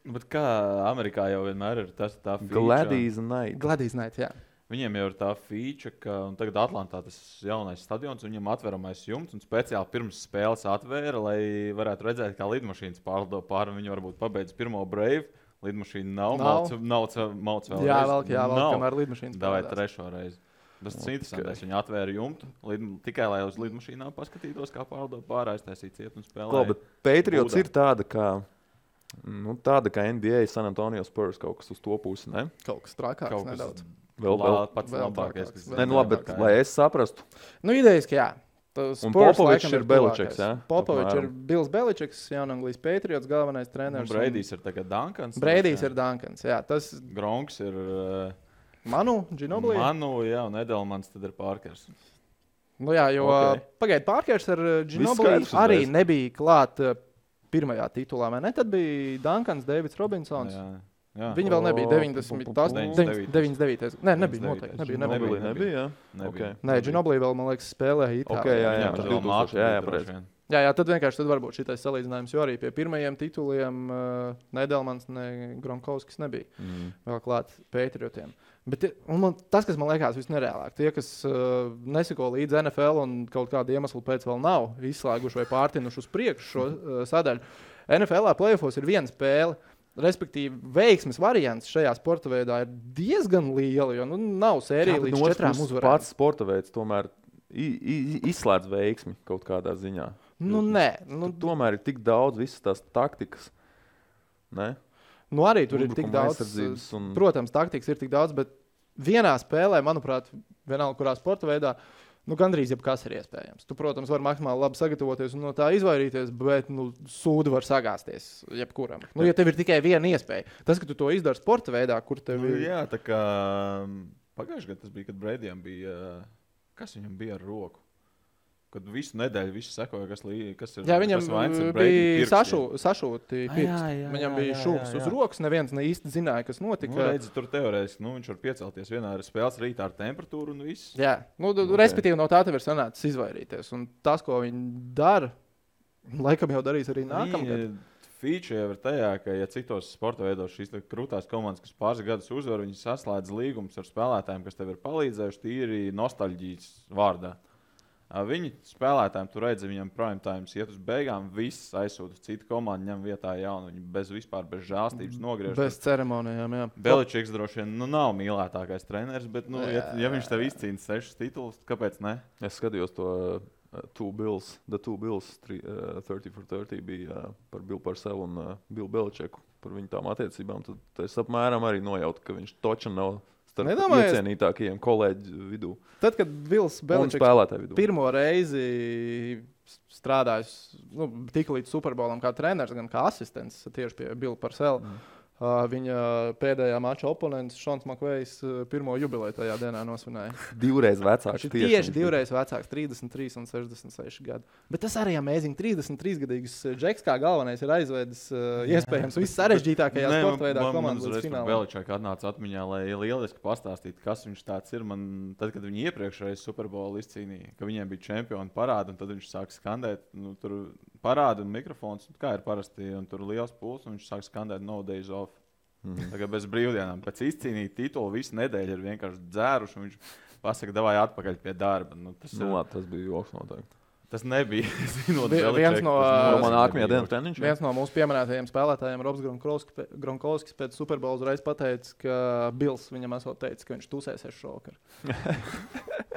Bet kā Amerikā jau vienmēr ir tā feature. Gladys Knight, jā. Viņiem jau ir tā feature, ka tagad Atlantā tas jaunais stadions, viņiem atveramais jumts un speciāli pirms spēles atvēra, lai varētu redzēt, kā lidmašīnas pārlido pāri, un viņi varbūt pabeidz pirmo brave, lidmašīna nav. Mauc vēl jā, kamēr lidmašīnas Davai trešo reizi. Tas ir interesantais, viņi atvēra jumtu, tikai lai uz lidmašīnām paskatītos, kā pārlido pāri, aiztaisīt ciet un spēlē. Bet Patriots ir tāda kā NBA San Antonio Spurs, kaut kas uz to pusi, ne? Kaut kas trakāks nedaudz. Vēl pats labākais, kas labi, bet lai es saprastu. Idejiski, jā. Un Popovičs ir Beličiks, jā? Popovičs ir Bills Beličiks, Jaunanglijas Patriots galvenais treneris. Braidijs ir tagad Duncans. Braidijs ir Duncans, jā. Gronks ir... Manu, Ginobili. Jā, un Edelmans tad ir Parkers. Nu jā, jo pagaid Parkers ar Ginobili arī nebija klāt pirmajā titulā, vai ne? Tad bija Duncans, Davids Robinsons. Jā. Viņi vēl nebija 99. Nē, nebija noteikti. Nebija, jā. Okay. Nē, Ginobili vēl, man liekas, spēlēja Itālijā. Jā, tad vienkārši tad varbūt šitais salīdzinājums, jo arī pie pirmajiem tituliem ne Edelmans, ne Gronkowskis nebija vēl klāt Patriotiem. Bet tas, kas man liekas visnereālāk, tie, kas neseko līdz NFL un kaut kādu iemeslu pēc vēl nav izslēguši vai pārtinuši uz priekšu šo sadaļu, NFL-ā playoffos ir viena spēle. Respektīvi, veiksmes variants šajā sporta veidā ir diezgan liela, jo nav sērija līdz 4 uzvarēm. Pats sporta veids tomēr izslēdz veiksmi kaut kādā ziņā. Nē. Tomēr ir tik daudz visas tās taktikas. Ne? Arī tur ir tik daudz. Protams, taktikas ir tik daudz, bet vienā spēlē, manuprāt, vienalga kurā sporta veidā, gandrīz jebkas ir iespējams. Tu, protams, vari maksimāli labi sagatavoties un no tā izvairīties, bet sūdi var sagāsties jebkuram. Ja tev ir tikai viena iespēja. Tas, ka tu to izdari sporta veidā, kur tev ir... Jā, tā kā pagājušajā gadā tas bija, kad Braidijam bija... Kas viņam bija ar roku? Kad visu nedēļu visi sekoja, kas ir... Jā, viņam bija sašūti pirksti. Viņam bija šūks uz rokas, neviens ne īsti zināja, kas notika. Redzi, tur teorētiski, viņš var piecelties vienā spēles rītā ar temperatūru un viss. Jā, respektīvi no tā tev ir sanācis izvairīties. Un tas, ko viņi dara, laikam jau darīs arī nākamgad. Feature jau ir tajā, ka, ja citos sporta veidos šīs krūtās komandas, kas pāris gadus uzvar, viņi saslēdz līgumus ar spēlētājiem, kas tev ir palīdzējuši tīri nostalģijas vārdā. Viņi spēlētājiem tur redz, viņam prime times iet uz beigām, viss aizsūta citu komandu, ņem vietā jaunu, viņi bez žēlstības nogriež. Bez ceremonijām, jā. Beličiks droši vien nav mīlētākais treneris, bet ja viņš tev izcīna 6 titulus, kāpēc ne? Es skatījos to The Two Bills 30 for 30 bija par Bill Parcellu un Bill Beličeku, par viņu tām attiecībām. Tad es apmēram arī nojautu, ka viņš toča nav iecienītākajiem kolēģu vidū. Tad, kad Bills Beličiks pirmo reizi strādājis tik līdz Super Bowlam kā treneris, gan kā asistents tieši pie Billa Parcella, viņa pēdējā mača oponents Šons Makvejs pirmo jubileju tajā dienā nosvinēja. Divreiz vecāks. Tieši divreiz vecāks, 33 un 66 gadu. Bet tas arī amazing. 33-gadīgs Džeks kā galvenais ir aizvedis iespējams viss sarežģītākajā sporta veidā komandas līdz finālam. Beliček atnāca atmiņā, lai lieliski pastāstītu, kas viņš tāds ir. Tad, kad viņi iepriekšreiz Super Bowl izcīnīja, ka viņiem bija čempioni parādi, un tad viņš sāk skandēt, tur parāda un mikrofons, kā ir parasti, un tur liels puls, un viņš sāk skandēt No Days Off. Tagad bez brīvdienām. Pēc izcīnīt titulu visu nedēļu ir vienkārši dzēruši, un viņš pasaka, davai atpakaļ pie darba. Tas bija joks noteikti. Tas nebija. Viens no mūsu pieminētajiem spēlētājiem, Robs Gronkowskis, pēc Super Bowl uzreiz pateica, ka Bills viņam esot teicis, ka viņš tusēsies šovakar.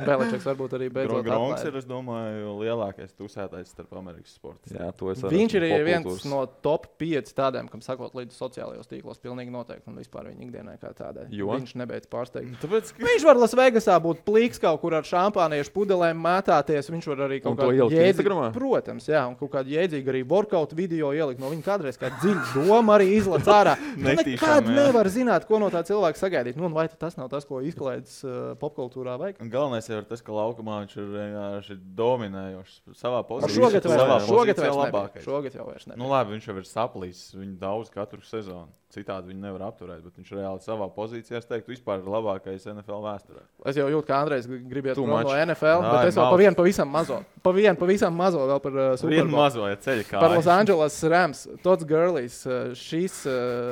Beličiks varbūt arī beidzot Gronks ir, es domāju, lielākais tusētājs starp Amerikas sportistiem. Jā, to es Viņš ir viens no top 5 tādiem, kam sakot līdz sociālajos tīklos, pilnīgi noteikti, un vispār viņa ikdienai kā tādai. Viņš nebeidz pārsteigt. Tāpēc, Viņš var Lasvegasā būt plīks kaut kur ar šampāniešu pudelēm mētāties, viņš var arī kaut kādu jēdzīgu, protams, jā, un kaut kādu jēdzīgu arī workout video ielikt no viņa kādreiz kā dziļa doma arī izlec ārā. Nekad nevar zināt, ko no tā cilvēka sagaidīt. Nu, un vai tas nav tas, ko izklaidis popkultūrā vajag? Galvenais jau ir tas, ka laukumā viņš ir vienkārši dominējošs savā pozīcijā. Šogad jau vairs ne. Nu labi, viņš jau ir saplīs, viņu daudz katru sezonu. Citādi viņu nevar apturēt, bet viņš reāli savā pozīcijā, es teiktu, vispār ir labākais NFL vēsturē. Es jau jūtu, ka Andrejs gribiet no NFL, bet es vēl pavisam mazo vēl par Super Bowl. Mazo, ja ceļa kājas. Par Los Angeles Rams, Todd Gurley's šīs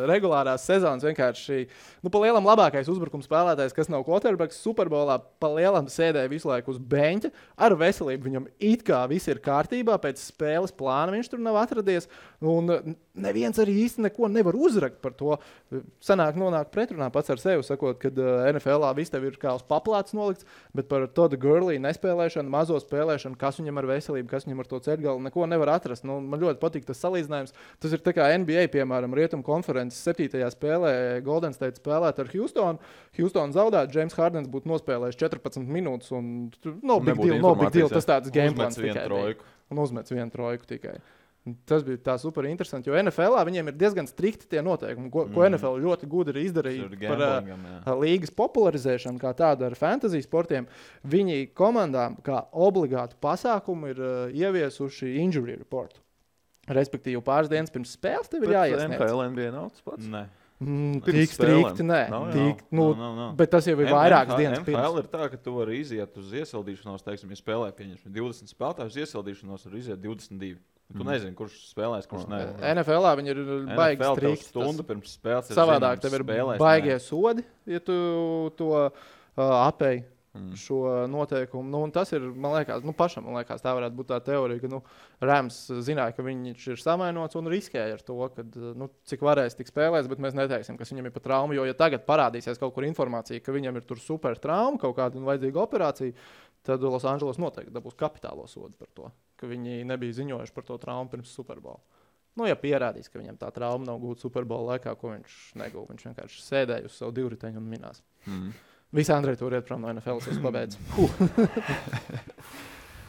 regulārās sezonas vienkārši, pa lielam labākais uzbrukums spēlētājs, kas nav quarterbacks, Super Bowlā pa lielam sēdēja visu laiku uz beņķa, ar veselību viņam it kā viss ir kārtībā, pēc spēles plāna viņš tur nav atradies, un neviens arī īsti neko nevar uzrakt par to. Nonāk pretrunā pats ar sevi, sakot, ka NFL-ā viss tev ir kā uz paplātes nolikts, bet par Todd Gurley nespēlēšanu, mazo spēlēšanu, kas viņam ar veselību, kas viņam ar to ceļgalu, neko nevar atrast. Nu, man ļoti patīk tas salīdzinājums. Tas ir tā kā NBA, piemēram, Rietumu konferences 7. spēlē Golden State spēlēt ar Houstonu. Houston zaudētu, James Hardens būtu nospēlējis 14 minūtes un no big deal, tas tāds game plans tikai bija. Un uzmets vienu trojku tikai. Tas bija tā super interesanti, jo NFL-ā viņiem ir diezgan strikti tie noteikumi, ko NFL ļoti gudri ir izdarījis par līgas popularizēšanu, kā tādu ar fantasy sportiem. Viņi komandām kā obligātu pasākumu ir ieviesuši injury report. Respektīvi, pāris dienas pirms spēles tev ir jāiesniedz. NFL NBA nav tas pats? Nē. Tik strikti, nē. Bet tas jau ir vairākas dienas pirms. NFL ir tā, ka tu vari iziet uz iesildīšanos, teiksim, ja spēlē pieņemsim 20 spēlētājus, iesildīšanos var iziet 22. Tu nezini, kurš spēlēs, kurš ne. NFL-ā viņi ir baigi strikti. Stundu pirms spēles ir savādāk, tev ir baigie sodi, ja tu to apēji šo noteikumu. Nu, un tas ir, man liekas, pašam, tā varētu būt tā teorija, ka Rams zināja, ka viņš ir samainots un riskēja ar to, ka cik varēs tik spēlēs, bet mēs neteiksim, kas viņam ir pa traumu, jo ja tagad parādīsies kaut kur informācija, ka viņam ir tur super trauma, kaut kāda vajadzīga operācija, tad Los Angeles noteikti dabūs kapitālo sodu par to, ka viņi nebija ziņojuši par to traumu pirms Super Bowl. Ja pierādīs, ka viņam tā trauma nav gūta Super Bowl laikā, ko viņš negūva, viņš vienkārši sēdēja uz savu divriteņu un minās. Visi Andrej tur iet prom no NFL, es pabeidzu.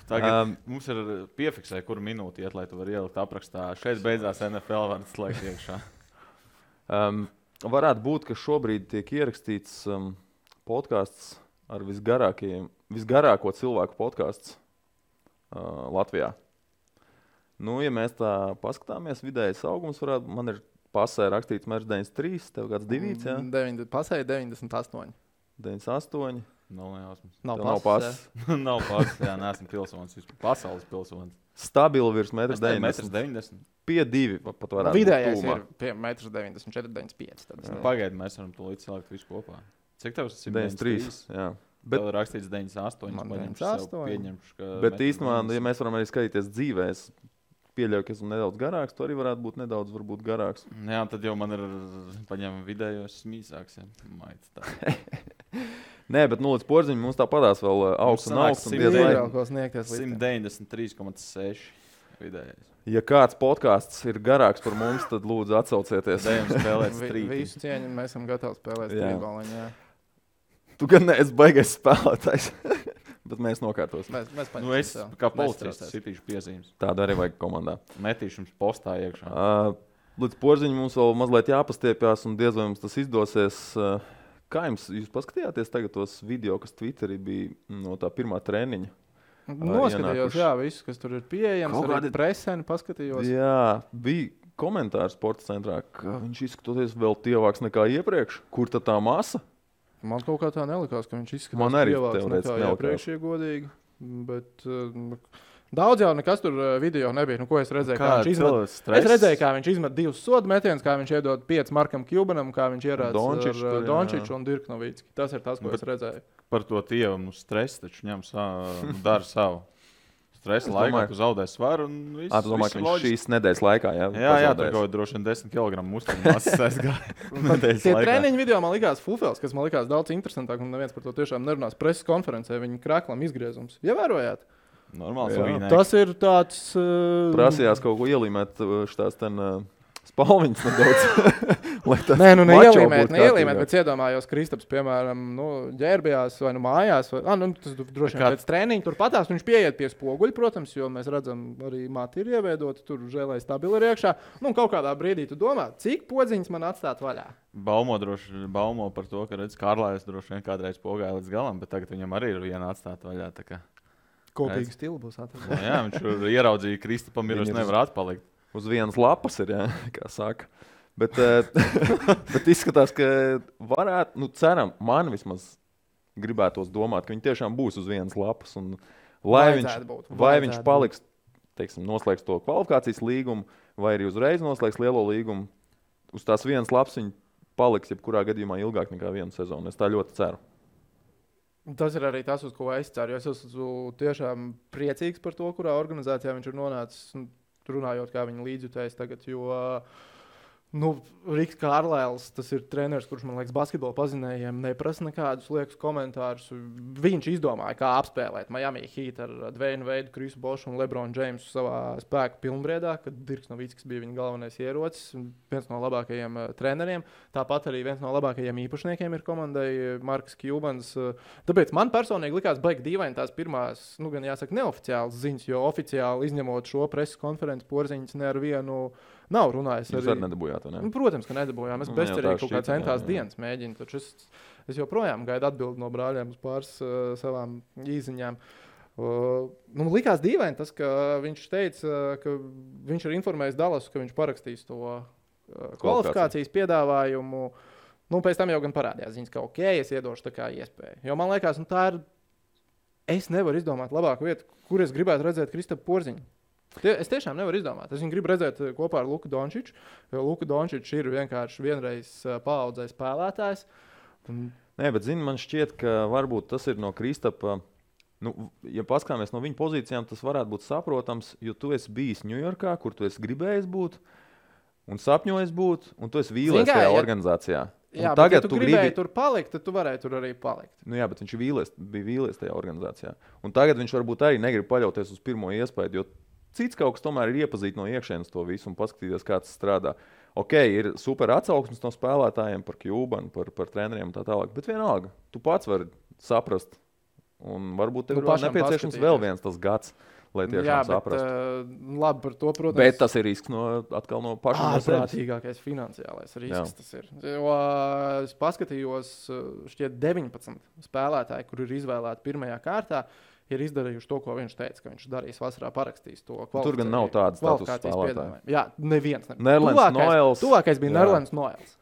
Tagad mums ir piefiksē, kuru minūti iet, lai tu vari ielikt aprakstā. Šeit beidzās NFL, var slēgt iekšā. Varētu būt, ka šobrīd tiek ierakstīts podcasts ar visgarāko cilvēku podcasts Latvijā. Ja mēs tā paskatāmies, vidējais augums varētu, man ir pasē rakstīts mērs 93, tev kāds 2, jā? Pasē 98. 98. Nav pasē. Nav pasē, jā, neesmu pilsonis, pasaules pilsonis. Stabili virs 1,90 m. Pie 2 pat varētu vidējais būt pie 1,94 m, 95. Pagaidi, mēs varam to līdz salikt visu kopā. Cik tev tas ir? 93, jā. Bet vēl rakstīts 98. Man 98. Bet īstenībā, ja mēs varam arī skatīties dzīvē, es pieļauju, ka esmu nedaudz garāks, tu arī varētu būt nedaudz varbūt garāks. Jā, tad jau man ir paņēma vidējos smīsāks. Nē, bet līdz porziņam mums tā padās vēl augsts un augsts. 193,6 vidējais. Ja kāds podcasts ir garāks par mums, tad lūdzu atsaucieties. Dejam spēlēt strīti. Visu cieņu, mēs esam gatavi spēlēt strītboliņu, jā. Tu gan neesi baigais spēlētājs, bet mēs nokārtosim. Es kā policists sitīšu piezīmes. Tādu arī vajag komandā. Metīšu jums postā iekšā. Līdz porziņam mums vēl mazliet jāpastiepjās un diez vai mums tas izdosies. Kā jūs paskatījāties tagad tos video, kas Twitterī bija no tā pirmā treniņa? Noskatījos, jā, visu, kas tur ir pieejams, arī preseni paskatījos. Jā, bija komentārs sporta centrā, ka viņš izskatoties vēl tievāks nekā iepriekš. Kur tad tā masa? Man kaut kā tā nelikās, ka viņš izskatās tievāks nekā iepriekš, ja godīgi. Bet daudz jau nekas tur video nebija. Ko es redzēju? Es redzēju, kā viņš izmet 2 sodu metienus, kā viņš iedod 5 Markam Cubanam, kā viņš ierāda ar Dončiču un Dirk Novicki. Tas ir tas, ko es redzēju. Par to tievam stress taču ņem dara savu. stresa laikā, tu zaudē svaru un viss. Tu domā, ka viņš šīs nedēļas laikā, jā, tur kaut droši vien 10 kg muskuļu aizgāja. Tie treniņu video man likās fufels, kas man likās daudz interesantāk, un neviens par to tiešām nerunās preses konferencē, viņa kraklam izgriezums. Ievērojāt? Normāls. Tas ir tāds... Prasījās kaut ko ielīmēt šitās ten... Spalviņas nedaudz. Nē, neielīmēt, bet iedomājos Kristaps, piemēram, ģērbjās vai mājās. Tas droši vien pēc treniņa tur patās, viņš pieiet pie spoguļa, protams, jo mēs redzam, arī mati ir ieveidoti, tur žēlai stabili ir iekšā. Kaut kādā brīdī tu domā, cik podziņas man atstāt vaļā? Baumo par to, ka redz, Kārlājs droši vien kādreiz pogāja līdz galam, bet tagad viņam arī ir viena atstāt vaļā. Kopīgi stili būs atstāt. Jā, viņš ieraudzīja Kristapam, ir nevar atpalikt. Uz vienas lapas ir, kā saka. Bet izskatās, ka varētu, ceram, man vismaz gribētos domāt, ka viņi tiešām būs uz vienas lapas. Un vai viņš paliks, teiksim, noslēgs to kvalifikācijas līgumu, vai arī uzreiz noslēgs lielo līgumu, uz tās vienas lapas viņi paliks jebkurā gadījumā ilgāk nekā vienu sezonu. Es tā ļoti ceru. Tas ir arī tas, uz ko es ceru. Es esmu tiešām priecīgs par to, kurā organizācijā viņš ir nonācis. Runājot, kā viņa līdzjutējs tagad, jo Riks Kārlēls, tas ir treneris, kurš, man liekas, basketbola pazinējiem neprasa nekādus liekus komentārus. Viņš izdomāja, kā apspēlēt Miami Heat ar Dwayne Wade, Krisu Bošu un LeBron Jamesu savā spēku pilnbriedā, kad Dirks Novickis bija viņa galvenais ierocis, viens no labākajiem treneriem. Tāpat arī viens no labākajiem īpašniekiem ir komandai Marks Cubans. Tāpēc man personīgi likās baigi dīvaini tās pirmās, gan jāsaka, neoficiālas ziņas, jo oficiāli izņemot šo preses konferenci Porziņš ne ar vienu nav runājis. Jūs arī nedabūjāt, ne? Protams, ka nedabūjām. Es bezcerīgi kaut kā centās dienas mēģinu, taču es joprojām gaidu atbildi no brāļiem uz pāris savām īziņām. Likās dīvaini tas, ka viņš teica, ka viņš ir informējis Dallasu, ka viņš parakstīs to kvalifikācijas piedāvājumu. Pēc tam jau gan parādījās ziņas, ka es iedošu tā kā iespēju. Jo man liekas, tā ir... Es nevaru izdomāt labāku vietu, kur es gribētu redzēt Kristapu Porziņu. Es tiešām nevaru izdomāt. Es viņu gribu redzēt kopā ar Luku Dončiču, jo Luka Dončičs ir vienkārši vienreiz paaudzē spēlētājs. Nē, bet man šķiet, ka varbūt tas ir no Kristapa, ja paskāmies no viņa pozīcijām, tas varētu būt saprotams, jo tu esi bijis Ņujorkā, kur tu esi gribējis būt un sapņojis būt, un tu esi vīlies tajā organizācijā. Jā, bet ja tu gribēji tur palikt, tad tu varēji tur arī palikt. Jā, bet viņš bija vīlies tajā organizācijā. Un tagad viņš varbūt arī negrib paļauties uz pirmo iespēju, jo cits kaut kas tomēr ir iepazīt no iekšienes to visu un paskatīties, kā tas strādā. Ir super atsauksmes no spēlētājiem par Cubanu, par treneriem un tā tālāk, bet vienalga, tu pats vari saprast. Un varbūt tev ir nepieciešams vēl viens tas gads, lai tiešām saprastu. Labi par to, protams. Bet tas ir risks atkal no pašiem. Ārprātīgākais finansiālais risks tas ir. Jo es paskatījos, šķiet 19 spēlētāji, kur ir izvēlēti pirmajā kārtā, ir izdarījuši to, ko viņš teica, ka viņš darīs vasarā, parakstīs to kvalifikāciju. Tur gan nav tādas status spēlētāji. Jā, neviens. Nerlands Noels. Tuvākais bija Nerlands Noels.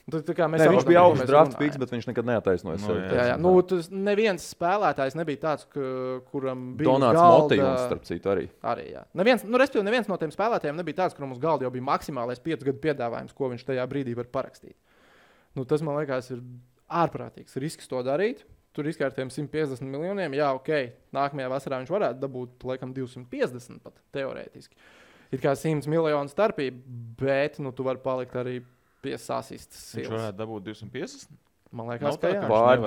Viņš bija augsts draft picks, bet viņš nekad neataisnoja sevi. Tas neviens spēlētājs nebija tāds, kuram bija Donāts Motejons, starp citu, arī. Jā. Neviens no tiem spēlētājiem nebija tāds, kuram uz galda jau bija maksimālais 5 gadu piedāvājums, ko viņš tajā brīdī var parakstīt. Tas, man liekas, ir ārprātīgs risks to darīt. Tur izkārtējam 150 miljoniem. Jā, nākamajā vasarā viņš varētu dabūt, laikam, 250 pat, teorētiski. Ir kā 100 miljonu starpība, bet tu vari palikt arī pie sasistas silas. Viņš varētu dabūt 250? Man liekas, ka jā. Pār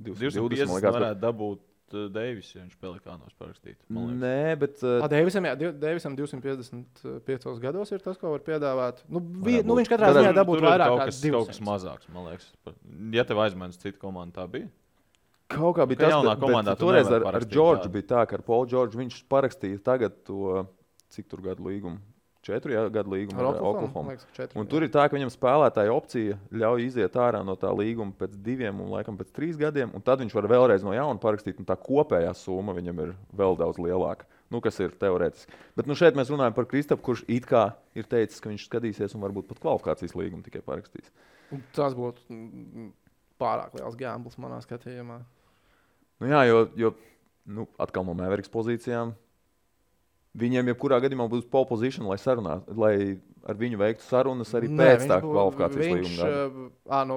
220 varētu dabūt Deivis, ja viņš Pelikānos parakstītu. Nē, bet... Deivisam 255 gados ir tas, ko var piedāvāt. Viņš katrā ziņā dabūt vairāk kā 200. Kaut kas mazāks, man liekas. Ja tev aizmēnes citu komandu, tā bija? Kaut kā bija tas, bet toreiz ar Džordžu bija tā, ka ar Paulu Džordžu viņš parakstīja tagad to, cik tur gadu līgumu? 4 gadu līgumu ar Oklahoma. Un tur ir tā, ka viņam spēlētāja opcija ļauj iziet ārā no tā līguma pēc 2 un laikam pēc 3 gadiem, un tad viņš var vēlreiz no jauna parakstīt, un tā kopējā summa viņam ir vēl daudz lielāka, kas ir teorētiski. Bet šeit mēs runājam par Kristapu, kurš it kā ir teicis, ka viņš skatīsies un varbūt pat kvalifikācijas līgumu tikai parakstīs. Tas būtu pārāk liels gambls manā skatījumā. Jo atkal no Mavericks pozīcijām viņiem jebkurā gadījumā būs pole position, lai ar viņu veiktu sarunas arī pēc tā kvalifikācijas līguma.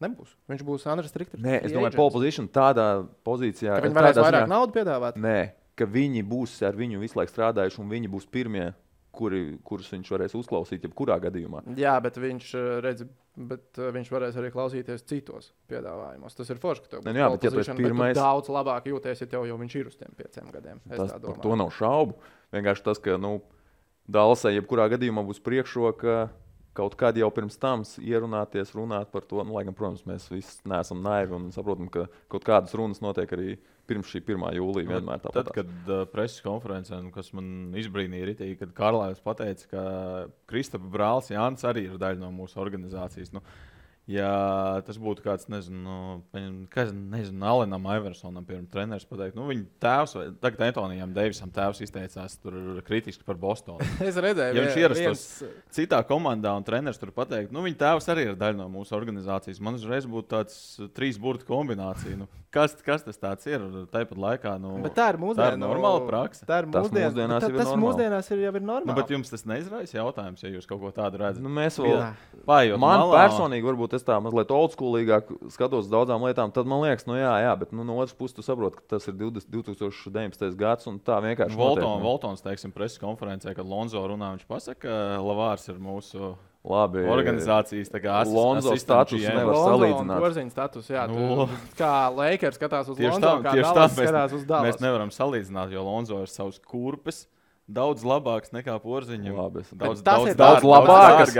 Nebūs. Viņš būs unrestricted. Nē, es domāju, pole position tādā pozīcijā. Ka viņi varēs vairāk naudu piedāvāt? Nē, ka viņi būs ar viņu visu laiku strādājuši un viņi būs pirmie, kurus viņš varēs uzklausīt jebkurā gadījumā. Jā, bet viņš varēs arī klausīties citos piedāvājumos. Tas ir forši, ka tev būs bet, ja tu pirmais... daudz labāk jūties, ja tev jau viņš ir uz tiem 5 gadiem. Par to nav šaubu. Vienkārši tas, ka Dallasai jebkurā gadījumā būs priekšroka kaut kādi jau pirms tam ierunāties, runāt par to. Lai gan, protams, mēs visi neesam naivi un saprotam, ka kaut kādas runas notiek arī pirms šī 1. jūlija vienmēr tāpat. Tad, kad preses konferencē, kas man izbrīnīja ritīgi, kad Karlājs pateica, ka Kristapa brālis Jānis arī ir daļa no mūsu organizācijas. Ja tas būtu kāds, nezinu, Alenam Iversonam, piemēram, treneris pateikt, viņa tēvs, vai tagad Antonijam Deivisam tēvs izteicās tur kritiski par Bostonu. Es redzēju, ja viņš ierastos citā komandā un treneris tur pateikt, viņa tēvs arī ir daļa no mūsu organizācijas. Man uzreiz būtu tāds 3 burtu kombinācija. Kas tas tāds ir? Tāpat laikā, bet tā ir mūsdiena. Tā ir normāla praksa. Tas mūsdienās jau ir normāli. Bet jums tas neizraisa jautājums, ja jūs kaut ko tādu redzat? Mēs vēl man personīgi varbūt es tā mazliet oldschoolīgāk skatos uz daudzām lietām, tad man liekas, jā, bet no otras puses tu saproti, ka tas ir 2019. gads un tā vienkārši Voltons, teiksim, preses konferencē, kad Lonzo runā, viņš pasaka, ka Lavārs ir mūsu organizācijas organizācijas Lonzo status nevar salīdzināt. Porziņa status, jā. Kā Lakers skatās uz Lonzo, kā Dallas skatās uz Dallas. Mēs nevaram salīdzināt, jo Lonzo ir savs kurpes. Daudz labāks nekā Porziņam. Daudz labāks.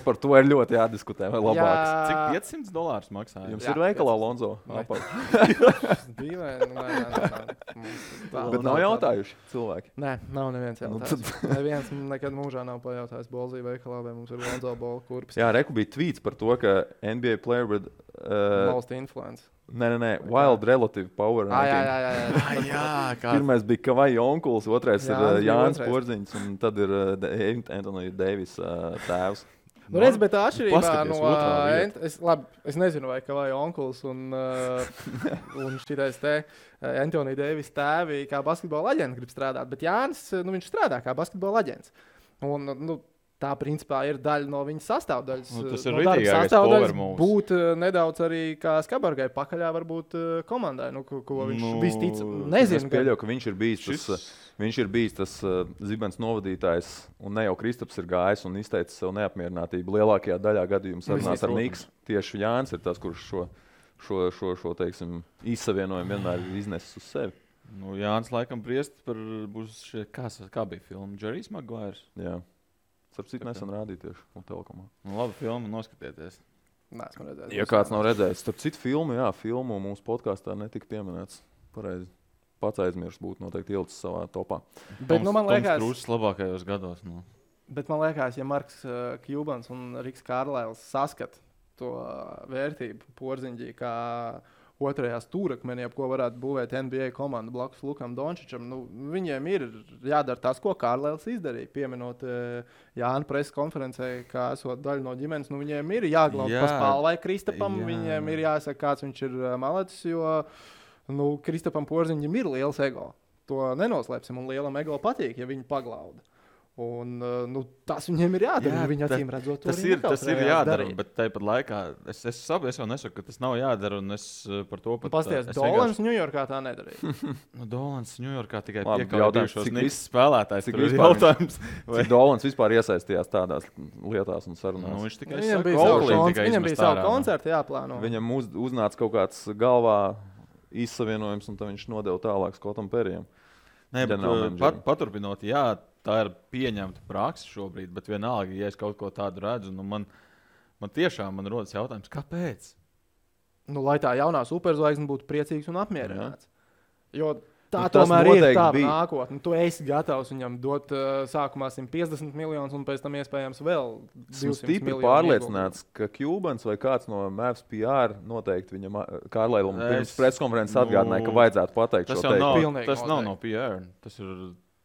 Par to ir ļoti jādiskutē. Vai labāks? Cik $500 maksā? Jums ir veikalā Lonzo? Bet nav jautājuši cilvēki. Nē, nav neviens jautājums. Neviens nekad mūžā nav pajautājis Bolzī veikalā, vai mums ir Lonzo bola kurpes. Jā, reku bija tweets par to, ka NBA player with most influence. Nē, Wild Relative Power. Jā. Pirmais bija Kavaja onkulis, otrais ir Jānis Porziņš, un tad ir Antonija Deivis tēvs. Redz, bet tā atšķirībā no... Es nezinu, vai Kavaja onkulis un šitais te Antonija Deivis tēvi kā basketbola aģents grib strādāt, bet Jānis, viņš strādā kā basketbola aģents. Un, tā, principā, ir daļa no viņas sastāvdaļas. Tas ir rītīgākais power moves. Būt nedaudz arī kā Skabargai pakaļā varbūt komandai, ko viņš vistic. Nezinu. Es pieļauju, ka viņš ir bijis tas zibens novadītājs, un ne jau Kristaps ir gājis un izteicis savu neapmierinātību. Lielākajā daļā gadījumu sarunās ar Niks. Tieši Jānis ir tas, kurš šo teiksim, izsavienojumu vienmēr ir iznesis uz sevi. Jānis laikam priest par būs kā bija filma? Jerry's Maguires? Jā. Starp nesen rādīja tieši un telekomā. Labi filmu, noskatieties. Neesmu redzējis. Ja kāds nav redzējis, starp citu filmu mūsu podkāstā netika pieminēts. Pareizi. Pats aizmirst būtu noteikti ielicis savā topā. Bet, man liekas, Krūzes labākajos gados. Bet man liekas, ja Marks Kjubans un Riks Kārlails saskat to vērtību Porziņģī kā otrajā stūrakmenī, ko varētu būvēt NBA komanda blakus Lukam Dončičam, viņiem ir jādara tas, ko Kārlēls izdarīja, pieminot Jāna preses konferencē, kā esot daļa no ģimenes. Viņiem ir jāglaubt pa spalvai Kristapam, viņiem ir jāsaka, kāds viņš ir malecis, jo Kristapam Porziņam ir liels ego. To nenoslēpsim, un lielam ego patīk, ja viņi paglauda. Un, tas viņiem ir jādara. Viņi acīm redzot, tas ir jādara, bet tāpat laikā es jau nesaku, ka tas nav jādara. Un es par to pat pasties, Dolans Ņujorkā tā nedarīja. Dolans Ņujorkā tikai piekāpījušos Niks spēlētājs. Cik Dolans vispār iesaistījās tādās lietās un sarunās? Viņš tikai viņam bija savu koncertu jāplāno. Viņam uznāca kaut kāds galvā izsavienojums, un tad viņš nodeva tālāk Skotam Perijam. Paturpinot, jā, tā ir pieņemta praksa šobrīd, bet vienalga, ja es kaut ko tādu redzu, man tiešām rodas jautājums, kāpēc? Lai tā jaunā superzvaigzne būtu priecīgs un apmierināts. Jo tā tomēr ir tā nākotne. Tu esi gatavs viņam dot sākumā 150 miljonus un pēc tam iespējams vēl 200 miljonus. Stipri pārliecināts, ka Kjubans vai kāds no Mavs PR noteikti viņam Kārlailam pirms preskonferences atgādināja, ka vajadzētu pateikt šo teikumu. Tas nav no PR. Tas ir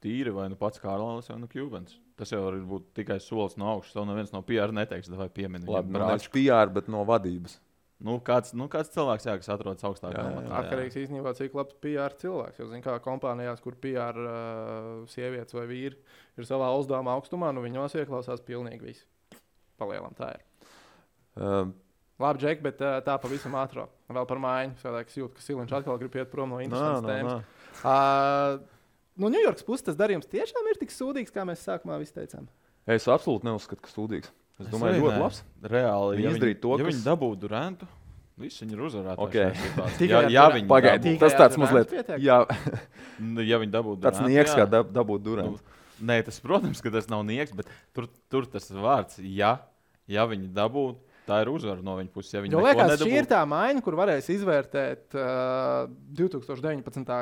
tīri vai pats Kārlailis vai Kjubans. Tas jau var būt tikai solis no augšas. Tev neviens no PR neteiks, vai piemini. Labi, nevis PR, bet no vadības. Kāds cilvēks, kas atrodas augstākā amatā. Atkarīgs īstenībā, cik labs PR cilvēks. Jo, kā kompānijās, kur PR sievietes vai vīri ir savā uzdevuma augstumā, viņos ieklausās pilnīgi visi. Palielam tā ir. Labi, Džek, bet tā pavisam ātrāk. Vēl par mājiņu. Es jūtu, ka Siliņš atkal grib iet prom no interesantas tēmas. no Ņujorkas puses tas darījums tiešām ir tik sūdīgs, kā mēs sākumā visi teicām. Es absolūti neuzskatu, ka sūdīgs. Es domāju, ļoti labs. Reāli, Viņi izdarīja to, ja kas... viņi dabūtu Durantu, visi viņi ir uzvarētāji. Okay. Ja viņi pagaidi, tas tāds mazliet... Jā, ja viņi dabūtu tāds Durantu, nieks, kā dabūt Durantu. Nē, tas, protams, ka tas nav nieks, bet tur tas vārds, ja viņi dabūtu, tā ir uzvara no viņa puses. Ja jo liekas, šī ir tā maiņa, kur varēs izvērtēt 2019.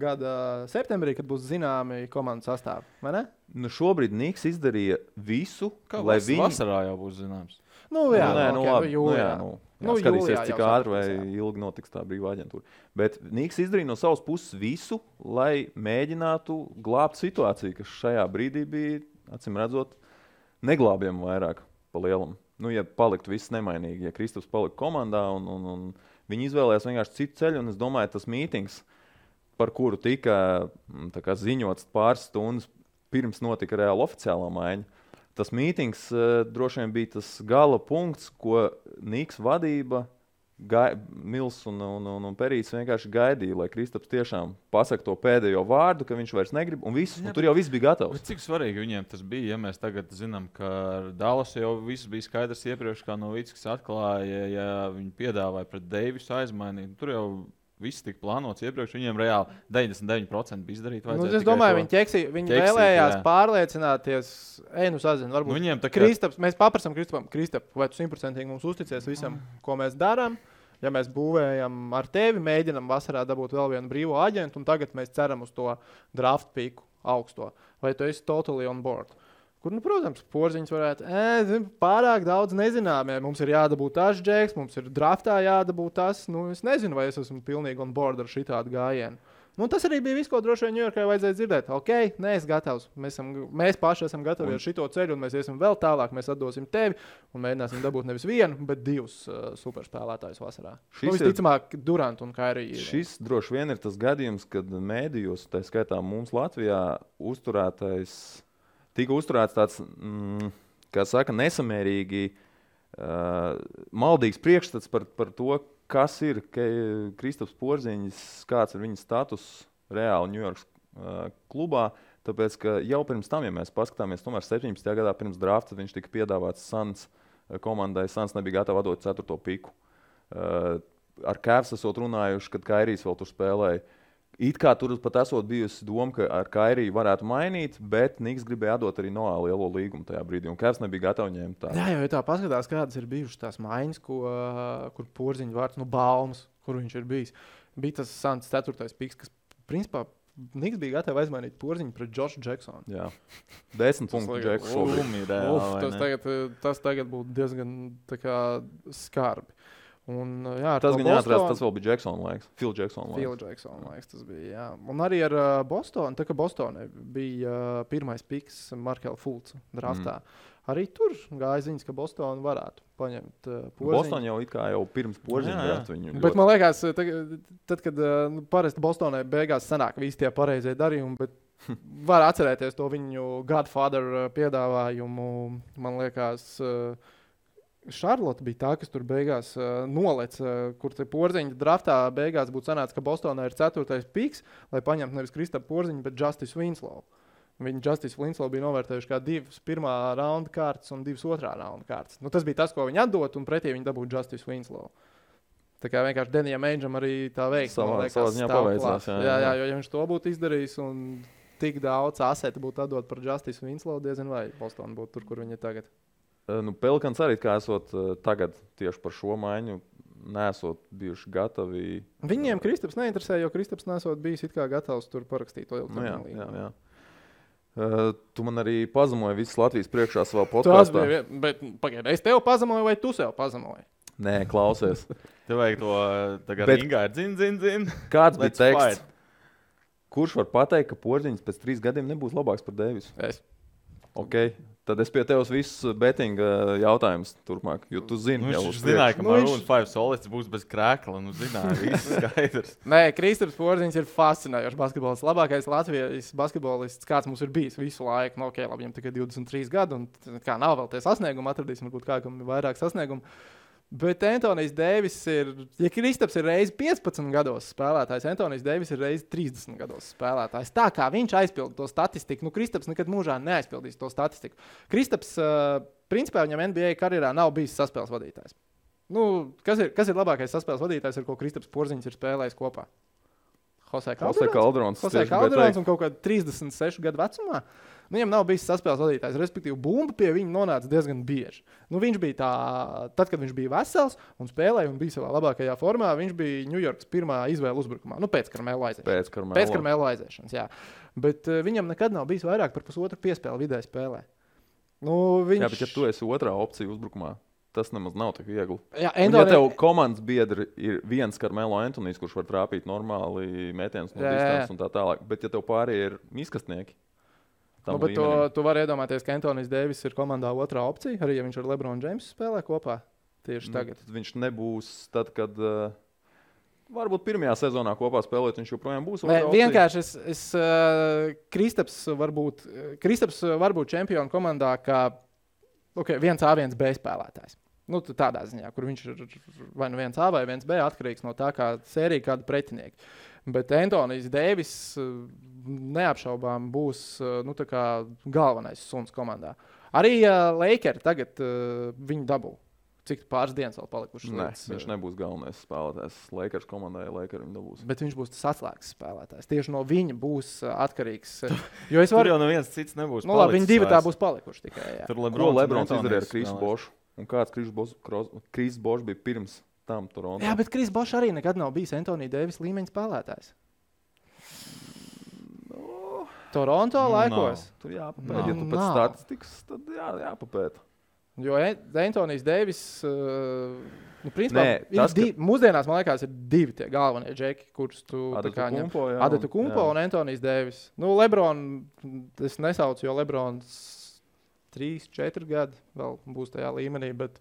Gada septembrī, kad būs zināmi komandas sastāvi, vai ne? Nu, šobrīd Niks izdarīja visu, kā lai viņi... Vasarā jau būs zināms. Nu, jā, skatīsies, cik ātri vai ilgi notiks tā brīvā aģentūra. Bet Niks izdarīja no savas puses visu, lai mēģinātu glābt situāciju, kas šajā brīdī bija, acīm redzot, neglābjama vairāk pa lielam. Nu, ja paliktu viss nemainīgi, ja Kristaps palika komandā un viņi izvēlējās vienkārši citu ceļu, un es domāju, tas mītings, par kuru tika ziņots pāris stundas pirms notika reāli oficiālā maiņa, tas mītings droši vien bija tas gala punkts, ko Niks vadība, Mils un Perīts vienkārši gaidīja, lai Kristaps tiešām pasaka to pēdējo vārdu, ka viņš vairs negrib, un tur jau viss bija gatavs. Cik svarīgi viņiem tas bija, ja mēs tagad zinām, ka Dallas jau viss bija skaidrs iepriekš, kā Novickis atklāja, ja viņi piedāvāja pret Deivisu aizmainīt. Tur jau viss tika plānots iepriekš, viņiem reāli 99% bija izdarīt. Es domāju, viņi vēlējās pārliecināties, sazinu, varbūt Kristaps, mēs paprasam Kristap, vai tu 100% mums uzticies visam, ko mēs darām. Ja mēs būvējam ar tevi, mēģinam vasarā dabūt vēl vienu brīvo aģentu, un tagad mēs ceram uz to draft piku augsto. Vai tu esi totally on board? Kur, protams, Porziņš varētu, pārāk daudz nezināmie. Mums ir jādabūt tas džeks, mums ir draftā jādabūt tas. Es nezinu, vai es esmu pilnīgi on board ar šitādu gājienu. Tas arī bija viss, ko droši vien Ņujorkai vajadzēja dzirdēt. Ok, neesi gatavs. Mēs paši esam gatavi ar šito ceļu, un mēs iesim vēl tālāk. Mēs atdosim tevi un mēģināsim dabūt nevis vienu, bet divus superspēlētājus vasarā. Visticamāk, Durant un Kairī. Šis droši vien ir tas gadījums, kad mēdījos, tā skaitā mums Latvijā, tika uzturēts tāds, kā saka, nesamērīgi maldīgs priekšstats par to, kas ir Kristaps Porziņš, kāds ir viņa status reāli Ņujorkas klubā. Tāpēc, ka jau pirms tam, ja mēs paskatāmies, tomēr 17. gadā pirms drafta viņš tika piedāvāts Suns komandai. Suns nebija gatava atdot 4. piku. Ar Cavs esot runājuši, kad Kairijs vēl tur spēlēja. It kā tur pat esot bijusi doma, ka ar Kairiju varētu mainīt, bet Niks gribēja atdot arī Noā lielo līgumu tajā brīdī, un Cavs nebija gatavs ņemt tā. Jā, jo tā paskatās, kādas ir bijušas tās maiņas, kur Porziņa vārds, Baumas, kur viņš ir bijis. Bija tas Suns 4. piks, kas principā Niks bija gatavs aizmainīt Porziņu pret Joshu Jacksonu. Jā, 10 punktu Jacksonu. Tas tagad būtu diezgan skarbi. Un, jā, tas gan jāatcerās, tas vēl bija Jacksona laiks. Phil Jacksona laiks tas bija, jā. Un arī ar Bostonu, tā kā Bostonai bija pirmais piks Markelle Fultz draftā. Arī tur gāja ziņas, ka Bostonu varētu paņemt Porziņu. Boston jau it kā jau pirms Porziņu drafta viņu. Bet man liekas, tad kad parasti Bostonai beigās sanāk visi tie pareizie darījumi, bet var atcerēties to viņu Godfather piedāvājumu, man liekas, Šarlota bija tā, kas tur beigās nolec, kur te Porziņa draftā beigās būtu sanācis, ka Bostonā ir 4. piks, lai paņemtu nevis Kristapu Porziņu, bet Justice Winslow. Viņi Justice Winslow bija novērtējuši kā 2 pirmā raunda kārtas un 2 otrā raunda kārtas. Tas bija tas, ko viņi atdot, un pretī viņi dabūtu Justice Winslow. Tā kā vienkārši Denijam Aingeam arī tā veiks. Savā ziņā paveicās. Jā, jo ja viņš to būtu izdarījis un tik daudz aseti būtu atdot par Justice Winslow, diezin vai Boston būtu tur, kur viņi ir tagad. Pelikans arī, kā esot tagad tieši par šo maiņu, nesot bijuši gatavi. Viņiem Kristaps neinteresē, jo Kristaps nesot bijis it kā gatavs tur parakstīt to ilgtermiņu līgumu. Tu man arī pazemoji visas Latvijas priekšā savā podkastā. Bet pagaidi, es tev pazemoju vai tu sev pazemoji? Nē, klausies. Tev vajag to tagad ringā zin. Kāds bija teksts? Kurš var pateikt, ka Porziņš pēc 3 gadiem nebūs labāks par Deivisu? Es. Ok. Tad es pie tevis visus bettinga jautājumus turpmāk, jo tu zini. Viņš zināja, ka Maroon 5 solists būs bez krēkla, zināja, viss skaidrs. Nē, Kristaps Porziņš ir fascinējošs basketbolists. Labākais Latvijas basketbolists, kāds mums ir bijis visu laiku. Ok, labi, viņam tikai 23 gadi, un kā nav vēl tie sasniegumi, atradīsim varbūt kā, kam ir vairāk sasniegumu. Bet Antonijs Deivis ja Kristaps ir reizi 15 gados spēlētājs, Antonijs Deivis ir reizi 30 gados spēlētājs. Tā kā viņš aizpilda to statistiku, Kristaps nekad mūžā neaizpildīs to statistiku. Kristaps, principā, viņam NBA karjerā nav bijis saspēles vadītājs. Kas ir labākais saspēles vadītājs, ar ko Kristaps Porziņš ir spēlējis kopā? Jose Calderons un kaut kādā 36 gadu vecumā. Viņam nav bijis saspēles vadītājs, respektīvi bumba pie viņa nonāca diezgan bieži. Viņš bija tad, kad viņš bija vesels un spēlēja un bija savā labākajā formā, viņš bija Ņujorkas pirmā izvēle uzbrukumā. Pēc Karmelo aiziešanas. Pēc Karmelo aiziešanas, jā. Bet viņam nekad nav bijis vairāk par pusotru piespēli vidēji spēlē. Jā, bet ja tu esi otrā opcija uzbrukumā, tas nemaz nav tik viegli. Jā, ja tev komandas biedri ir viens Karmelo Antonijs, kurš var trāpīt normāli mētienus no distances un tā tālāk, bet ja tev pārējie ir miskastnieki, bet tu vari iedomāties, ka Antonijs Deivis ir komandā otrā opcija, arī ja viņš ar LeBron Jamesu spēlē kopā tieši tagad. Viņš nebūs tad, kad varbūt pirmajā sezonā kopā spēlēt, viņš joprojām būs otrā opcija. Vienkārši Kristaps var būt čempionu komandā kā viens A, viens B spēlētājs. Tādā ziņā, kur viņš ir vai viens A vai viens B atkarīgs no tā, kā sērija kāda pretinieki. Bet Antonijs Deivis neapšaubām būs tā kā galvenais suns komandā. Arī Lakeri tagad viņu dabū. Cik pāris dienas vēl palikušas? Nē, viņš nebūs galvenais spēlētājs. Lakers komandai Lakeri viņu dabūs. Bet viņš būs tas atslēgas spēlētājs. Tieši no viņa būs atkarīgs. Tur jau neviens cits nebūs palicis. Viņi divi tā būs palikuši tikai. Jā. Ko Lebrons izdarīja ar Krisu Bošu? Un kāds Kris Bošs bija pirms tam Toronto? Jā, bet Kris Bošs arī nekad nav bijis Antonija Deivis līmeņa spēlētājs. Toronto laikos. Tur jāpapēta. Ja tu pēc statistikas, tad jāpapēta. Jo Antonijs Deivis, principā, mūsdienās, man liekas, ir divi tie galvenie džeki, kurus tu Adetu Kumpo un Antonijs Deivis. Lebron, es nesaucu, jo Lebrons 3-4 gadi vēl būs tajā līmenī, bet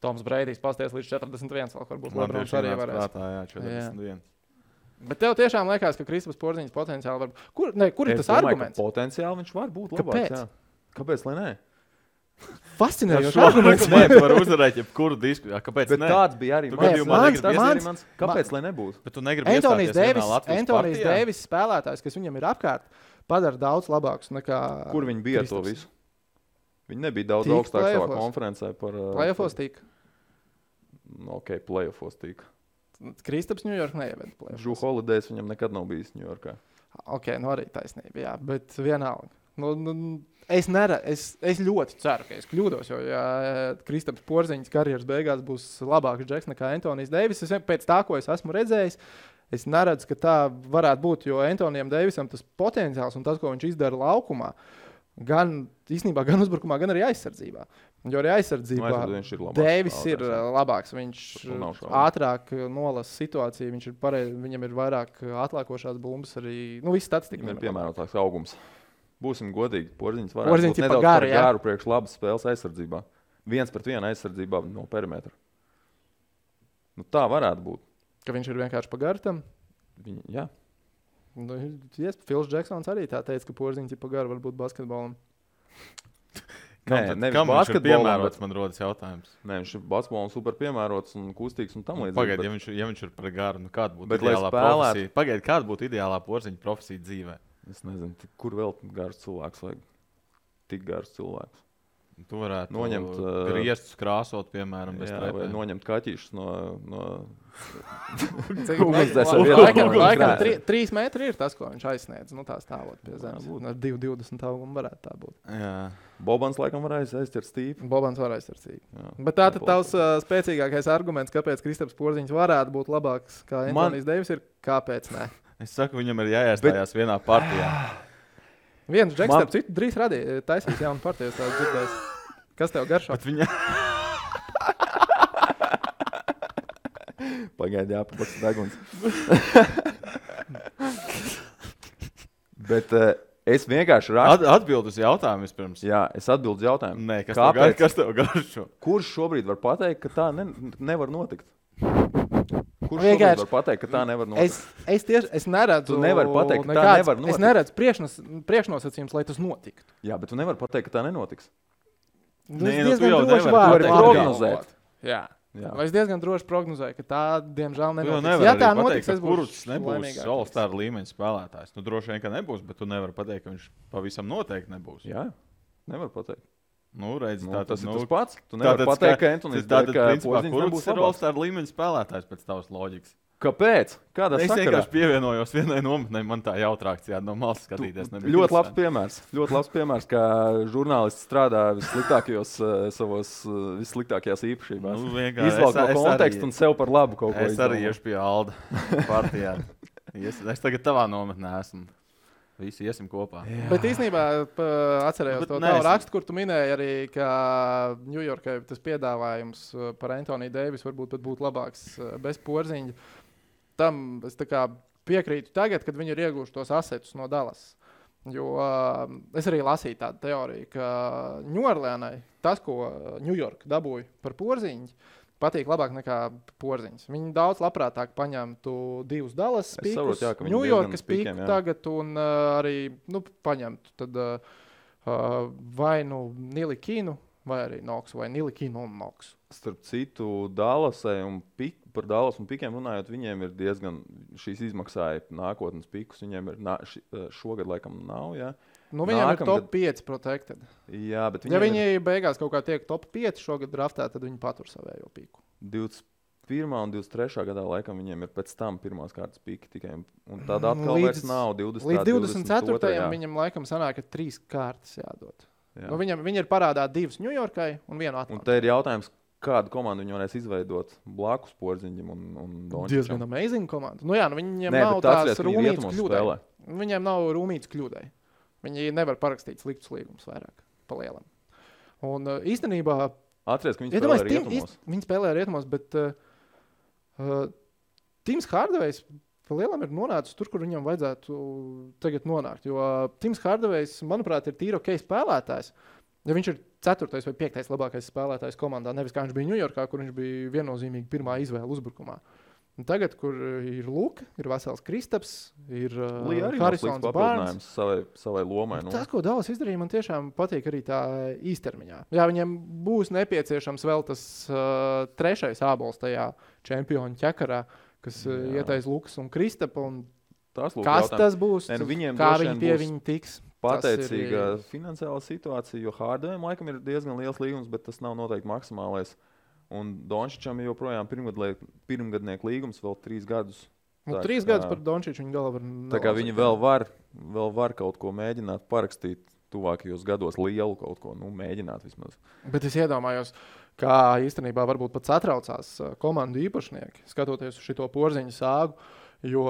Toms Breidijs pasties līdz 41, vēl varbūt Lebrons arī varēs. Jā, 41. Bet tev tiešām liekas, ka Kristaps Porziņš potenciāli var būt. Kur ir tas arguments? Potenciāli viņš var būt labāks. Kāpēc, lai nē? Fascinējoši arguments. Nē, tu vari uzvarēt jebkuru diskusiju. Kāpēc bet ne? Tāds bija arī mans. Kāpēc, lai nebūtu? Bet tu negribi iestāties vienā Latvijas Antonijs Deivis spēlētājs, kas viņam ir apkārt, padara daudz labākus nekā Kur viņi bija Kristaps. To visu? Viņi nebija daudz augstāk savā konferencē par... Playoffos tika. Playoffos tika. Kristaps Ņujork neieved playoffos. Drew Holidays viņam nekad nav bijis Ņujorkā. Arī taisnība, jā, bet vienalga. Es ļoti ceru, ka es kļūdos, jo ja Kristaps Porziņš karjeras beigās būs labāks džeks nekā Antonijs Deivis, pēc tā, ko es esmu redzējis, es neredzu, ka tā varētu būt, jo Antonijam Deivisam tas potenciāls un tas, ko viņš izdara laukumā, gan uzbrukumā, gan arī aizsardzībā. Jo arī aizsardzībā Deivis ir labāks. Viņš ātrāk nolasa situāciju, viņam ir vairāk atlākošās bumbas arī, viss statistika. Viņam ir piemērotāks augums. Būsim godīgi, Porziņš varētu būt nedaudz par garu priekš labas spēles aizsardzībā. 1-1 aizsardzībā no perimetra. Tā varētu būt. Ka viņš ir vienkārši pa garu tam? Jā. Phils Jacksons arī tā teica, ka Porziņš ir pa garu varbūt basketbolam. Nevis basketbolam, bet man rodas jautājums. Nē, viņš ir basketbolam super piemērots un kustīgs un tam līdzīgi. Pagaid, ja viņš ir par garu, kāda būtu ideālā profesija? Pagaid, kāda būtu ideālā Porziņa profesija dzīvē? Es nezinu, kur vēl gars cilvēks vajag. Tik gars cilvēks. Tu varētu noņemt griestus krāsot, piemēram, bez trepēm. Vai noņemt kaķīšus no... Laikam 3 metri ir tas, ko viņš aizsniedz. Tā stāvot pie zemes. Ar 2,20 augumu varētu tā būt. Jā. Bobans laikam var aizķert stīpi. Bobans var aizķert stīpi. Bet tātad tavs spēcīgākais arguments, kāpēc Kristaps Porziņš varētu būt labāks kā Antonijs Deivis, ir kāpēc ne? Es saku, viņam ir jāiestājās vienā partijā. Viens džeks, starp citu, drīz taisīs jaunu partiju, tā dzirdēs. Kas tev garšo? Pagaidi, jāpapaks deguns. Bet es vienkārši rakstu. Atbildu uz jautājumu vispirms. Jā, es atbildu uz jautājumu. Nē, kas tev garšo? Kurš šobrīd var pateikt, ka tā nevar notikt? Kurš šobrīd var pateikt, ka tā nevar notikt? Es neredzu... Tu nevari pateikt, ka tā nevar notikt. Es neredzu priekšnosacījums, lai tas notiktu. Jā, bet tu nevari pateikt, ka tā nenotiks. Nē, tu jau nevari prognozēt. Jā. Jā. Es diezgan droši prognozēju, ka tā, diemžēl, nenotiks. Ja tā notiks, es būšu kurš nebūs All-Star līmeņa spēlētājs. Nu, droši vien, ka nebūs, bet tu nevari pateikt, ka viņš pavisam noteikti nebūs. Jā, nevar pateikt. Nu, redz, tas ir tas pats. Tu nevari pateikt, ka Antonijs kurš ir All-Star līmeņa spēlētājs pēc tavas loģikas. Kāpēc? Kādā es sakarā? vienkārši pievienojos vienai nometnei, man tā jautrāk no malas skatīties. Ļoti labs piemērs. Ļoti labs piemērs, kā žurnālists strādā vissliktākajās īpašībās. Nu, izvelk no konteksta un sev par labu kaut ko. Es arī iešu pie Alda partijā. Es tagad tavā nometnē esmu. Visi iesim kopā. Jā. Bet īstenībā atcerējos to tavu rakstu, kur tu minēji arī, ka Ņujorkai tas piedāvājums par Antoniju Deivisu varbūt pat būtu labāks bez Porziņa. Tam es tā kā piekrītu tagad, kad viņi ir ieguvuši tos asetus no Dallas. Jo es arī lasīju tādu teoriju, ka Ņūorleānai tas, ko Ņujorka dabūja par Porziņu, patīk labāk nekā Porziņš. Viņi daudz labprātāk paņemtu 2 Dallas pīkus, Ņujorkas pīku tagad un arī paņemtu tad, vai Nilikinu, vai arī Noksu, vai Nilikinu un Noksu. Starp citu, Dallasai un par Dallas un pikiem runājot, viņiem ir diezgan šīs izmaksāja nākotnes pikus. Viņiem ir šogad laikam nav, jā. Nu, viņiem ir top 5 protected. Jā, bet ja viņi beigās kaut kā tiek top 5 šogad draftē, tad viņi patur savējo piku. 21. un 23. gadā laikam viņiem ir pēc tam pirmās kārtas piki tikai. Un tāda atkal vairs nav 20. Līdz 24. viņam laikam sanāk, ka 3 kārtas jādod. Nu, viņi ir parādā 2 Ņujorkai un 1 Atlantā. Un te ir jautājums, kādu komandu viņi varēs izveidot blakus Porziņam un Dončičam. Diezgan amazing komanda. Nu jā, viņiem nav tās rūmītas kļūdai. Viņiem nav rūmītas kļūdai. Viņi nevar parakstīt sliktus līgumus vairāk pa lielam. Un īstenībā... Atceries, ka viņi spēlē rietumos. Viņi spēlē rietumos, bet Tims Hardavejs pa lielam ir nonācis tur, kur viņam vajadzētu tagad nonākt. Jo Tims Hardavejs, manuprāt, ir tīri ok spēlētājs. Ja viņš ir 4. vai 5. labākais spēlētājs komandā, nevis kā viņš bija Ņujorkā, kur viņš bija viennozīmīgi pirmā izvēle uzbrukumā. Un tagad, kur ir Luka, ir vesels Kristaps, ir Harisons Barnes. Savai lomai. Nu. Tas, ko Dallas izdarīja, man tiešām patīk arī tā īstermiņā. Jā, viņiem būs nepieciešams vēl tas 3. ābols tajā čempionu ķekarā, kas ietais Lukas un Kristapa. Un kas tas būs? Kā viņi pie viņa tiks? Pateicīga finansiāla situācija, jo Hardavejam laikam ir diezgan liels līgums, bet tas nav noteikti maksimālais. Un Dončičam ir joprojām pirmgadnieku līgums vēl 3 gadus. Nu, 3 gadus par Dončiču viņa galva var nelasīt. Tā kā viņi vēl var kaut ko mēģināt parakstīt tuvākajos gados lielu kaut ko, mēģināt vismaz. Bet es iedomājos, kā īstenībā varbūt pat satraucās komandu īpašnieki, skatoties uz šito Porziņa sāgu, jo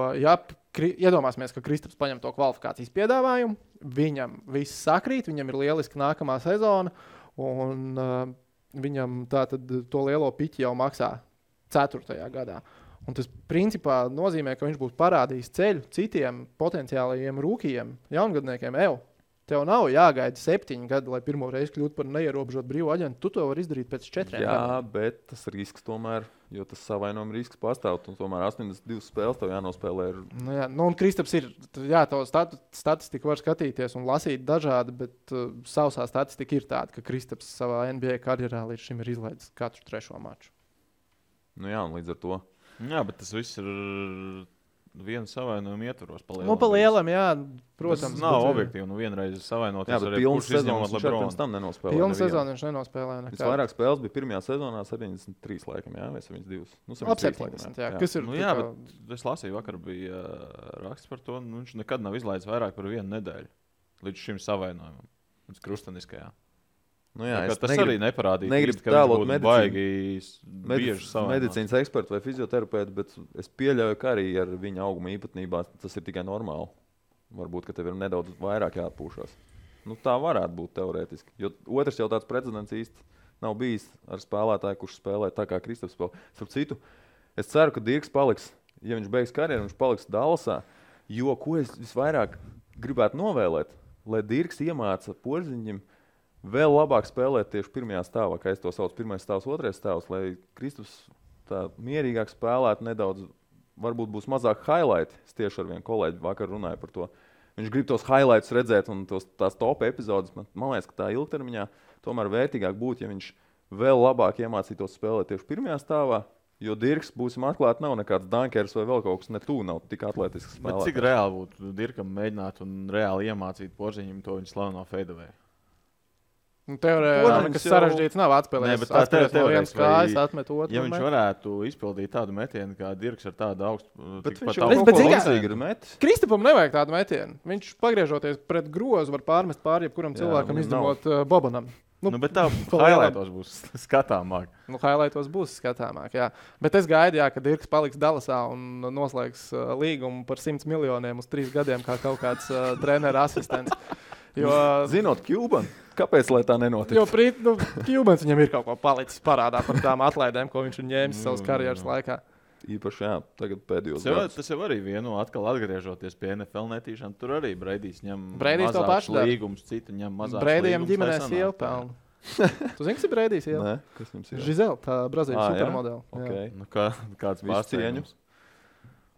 iedomāsimies, ka Kristaps paņem to kvalifikācijas piedāvājumu, viņam viss sakrīt, viņam ir lieliski nākamā sezona, un viņam tātad to lielo piķi jau maksā 4. gadā. Un tas principā nozīmē, ka viņš būs parādījis ceļu citiem potenciālajiem rūkījiem, jaungadniekiem. Tev nav jāgaida 7 gadi, lai pirmo reizi kļūtu par neierobežotu brīvu aģentu. Tu to vari izdarīt pēc 4 gadiem. Jā, bet tas risks tomēr, jo tas savainojuma risks pastāv. Tomēr 82 spēles tev jānospēlē. Un Kristaps ir, to statistiku var skatīties un lasīt dažādi, bet sausā statistika ir tāda, ka Kristaps savā NBA karjerā līdz šim ir izlaidis katru 3. maču. Nu jā, un līdz ar to. Jā, bet tas viss ir vienu savainojumu ietvaros. Pa lielam, jā, protams. Tas nav objektīvi, vienreiz savainoties. Jā, bet pilnas sezonas viņš pirms tam nenospēlē. Pilnas sezonas viņš nenospēlē. Vairāk spēles bija pirmajā sezonā 73 laikam, jā, vai 72? Ap 70, jā. Kas ir? Jā, bet es lasīju, vakar bija raksts par to, viņš nekad nav izlaidis vairāk par 1 nedēļu līdz šim savainojumam, līdz krusteniskajā. Jā, tas arī neparādīja. Negribu tēlot medicīnas ekspertu vai fizioterapeitu, bet es pieļauju, ka arī ar viņa auguma īpatnībā tas ir tikai normāli. Varbūt, ka tev ir nedaudz vairāk jāatpūšās. Tā varētu būt teorētiski. Jo otrs jau tāds precedents īsti nav bijis ar spēlētāju, kurš spēlē tā kā Kristaps spēlē. Starp citu, es ceru, ka Dirks paliks, ja viņš beigs karjeru, viņš paliks Dallasā, jo ko es visvairāk gribētu novēlēt, lai Dirks iemāca Porziņam vēl labāk spēlēt tieši pirmajā stāvā, kā es to saucu, pirmais stāvs, otrais stāvs, lai Kristaps tā mierīgāk spēlētu nedaudz, varbūt būs mazāk highlight. Es tieši ar vienu kolēģi vakar runāju par to. Viņš grib tos highlights redzēt un tās top epizodes. Man liekas, ka tā ilgtermiņā tomēr vērtīgāk būtu, ja viņš vēl labāk iemācītos spēlēt tieši pirmajā stāvā. Jo Dirks, būsim atklāti, nav nekāds dankers vai vēl kaut kas, ne tu nav tik atletisks spēlētājs. Cik reāli būtu Dirkam mēģināt un reāli iemācīt Porziņam to viņa slaveno fadeaway? Teorētiski nekas sarežģīts nav atspēlējis. Atspēlējis no vienas kājas, atmet otru. Ja viņš varētu izpildīt tādu metienu, kā Dirks ar tādu augstu... Bet viņš jau kaut ko līdzīgi ir metis. Kristapam nevajag tādu metienu. Viņš pagriežoties pret grozu var pārmest pār jebkuram cilvēkam, izņemot Bobanam. Bet tā highlightos būs skatāmāk. Highlightos būs skatāmāk, jā. Bet es gaidu, ka Dirks paliks Dallasā un noslēgs līgumu par 100 miljoniem uz 3 gadiem kā kaut kāds trenera asistents. Jo, zinot Cuban, kāpēc lai tā nenotiek? Jo Cubans viņam ir kaut ko palicis parādā par tām atlaidēm, ko viņš ir ņēmis savas karjeras laikā. Īpaši, tagad pēdējos gadus. Tas jau arī atkal atgriežoties pie NFL netīšām. Tur arī Breidijs ņem mazāks līgums, citi ņem mazāks līgums. Breidijam ģimenē sieva pelna. Tu zini, kas ir Breidijs sieva? Nē, kas jums ir? Žizela, tā Brazīlijas supermodela. Okay. Nu, kāds pārsteigums?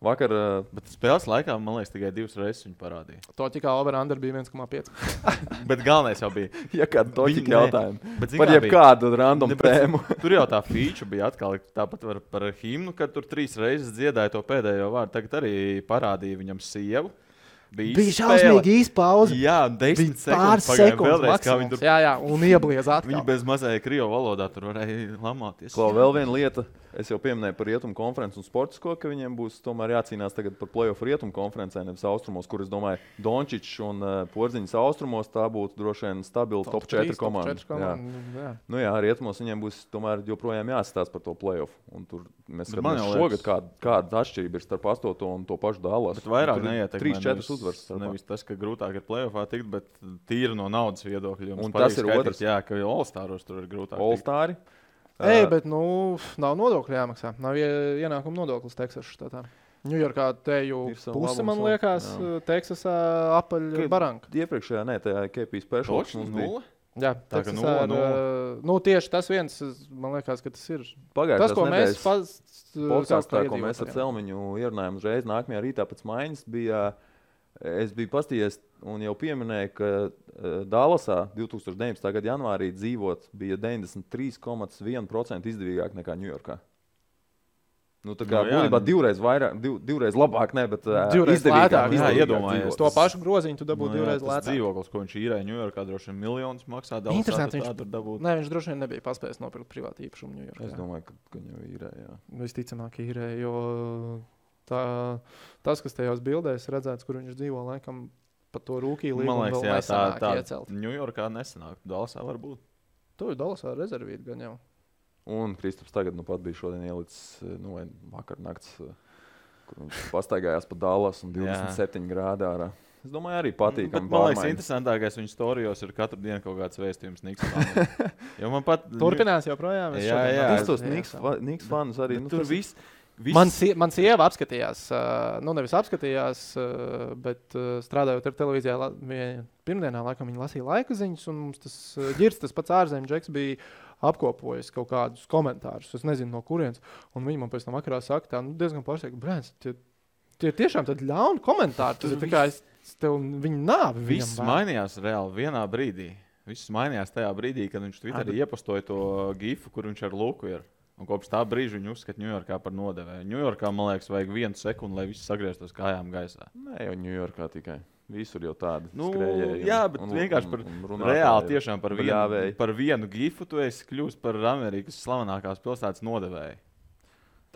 Vakar, bet spēles laikā, man liekas, tikai 2 reizes viņu parādīja. Toķikā over-under bija 1,5. Bet galvenais jau bija. Ja kāda toķika jautājuma. Par jebkādu random tēmu. Tur jau tā feature bija atkal tāpat par himnu, kad tur 3 reizes dziedāja to pēdējo vārdu. Tagad arī parādīja viņam sievu. Bija šausmīgi īsta pauze. Jā, 10 sekundes maksimums. Jā, un iebliez atkal. Viņi bez mazai krievu valodā tur varēja lamāties. Klau, vēl viena lieta. Es jau pieminēju par rietumu konferenci un sportisko, ka viņiem būs tomēr jācīnās tagad par play-off rietumu konferencē, nevis austrumos, kur es domāju, Dončičs un Porziņas austrumos tā būtu droši vien stabila top 4 komanda. Nu jā, rietumos viņiem būs tomēr joprojām jāsastās par to play-off. Un tur mēs skatāmies šogad, kāda atšķirība ir starp 8. un to pašu Dallas. Bet vairāk neietekmē 3-4 uzvaras. Nevis tas, ka grūtāk ir play-offā tikt, bet tīri no naudas viedokļa. Un tas ir otrs. Jā, ka All-Staros tur ir grūtāk. All-Stari. Bet nav nodokļu jāmaksā. Nav ienākuma nodoklis Teksasas štatā. Ņujorkā teju puse, man liekas, Teksasā apaļ baranka. Iepriekšējā, tajā KP specials mums bija. Jā, tā kā tieši tas viens, man liekas, ka tas ir. Pagājušās tas, ko nedēļas podkāstā, ko mēs ar Celmiņu ierunājām uzreiz nākamajā rītā pēc maiņas, es biju pastījies un jau pieminēju, ka Dallasā 2019. gada janvārī dzīvot bija 93,1% izdevīgāk nekā Ņujorkā. Nu, tā kā būtībā divreiz labāk, ne, bet izdevīgāk. Jā, iedomājies. To pašu groziņu tu dabūtu divreiz lētāk. Tas dzīvoklis, ko viņš īrēja Ņujorkā, droši vien miljonus maksā. Interesanti, viņš droši vien nebija paspējis nopirkt privātu īpašumu Ņujorkā. Es domāju, ka viņu īrēja. Visticamāk īrēja, jo tas, kas tajos bildēs redzēts, kur viņš dzīvo, laikam par to rūkī līgumu vēl nesanāk iecelt. Ņujorkā nesanāk, Dallasā var būt. Tu Dallasā rezervīt gan jau. Un Kristaps tagad pat bija šodien ielicis vakar nakts, kur viņš pastaigājās pa Dallas un 27 grādā ārā. Es domāju, arī patīkami. Man liekas, interesantākais viņa storijos ir katru dienu kaut kāds vēstījums Niks fanam. Turpinās joprojām. Jā. Es tos Niks fanus arī. Tur viss. Man sieva apskatījās, nevis apskatījās, bet strādājot ar televīzijā pirmdienā, laikam viņa lasīja laika ziņas, un mums tas ģirds, tas pats ārzemju džeks bija apkopojis kaut kādus komentārus, es nezinu no kurienes, un viņi man pēc tam vakarā saka, tā diezgan pārsteigti, Brēns, tie tiešām tad ļauni komentāri, tas ir tā kā tev viņa nāvi. Viss mainījās reāli vienā brīdī. Viss mainījās tajā brīdī, kad viņš Twitterī iepostoja to gifu, kur viņš ar Luku ir. Un kopš tā brīža viņu uzskata Ņujorkā par nodevēju. Ņujorkā, man liekas, vajag 1 sekundi, lai viss sagrieztos kājām gaisā. Nē, jau Ņujorkā tikai. Visur jau tādi skrējēji. Jā, bet vienkārši par reāli tiešām par vienu gifu tu esi kļūst par Amerikas slavenākās pilsētas nodevēju.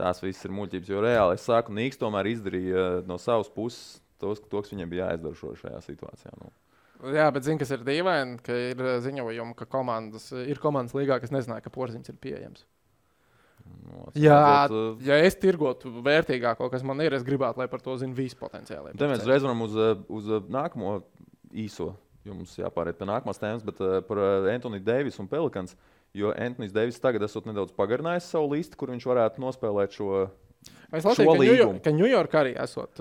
Tās viss ir muļķības, jo reāli es saku, Nīks tomēr izdarīja no savas puses to, kas viņam bija jāizdara šajā situācijā. Jā, bet zini, kas ir dīvaini, ka ir ziņojumi, ka ir komandas līgā, kas nezināja, ka Porziņš ir pieejams. Ja es tirgotu vērtīgāko, kas man ir, es gribētu, lai par to zina visi potenciāli. Te mēs reiz varam uz nākamo īso, jo mums jāpāriet pie nākamās tēmas, bet par Anthony Davis un Pelicans, jo Anthony Davis tagad esot nedaudz pagarinājis savu listu, kur viņš varētu nospēlēt šo līgumu. Ka New York arī esot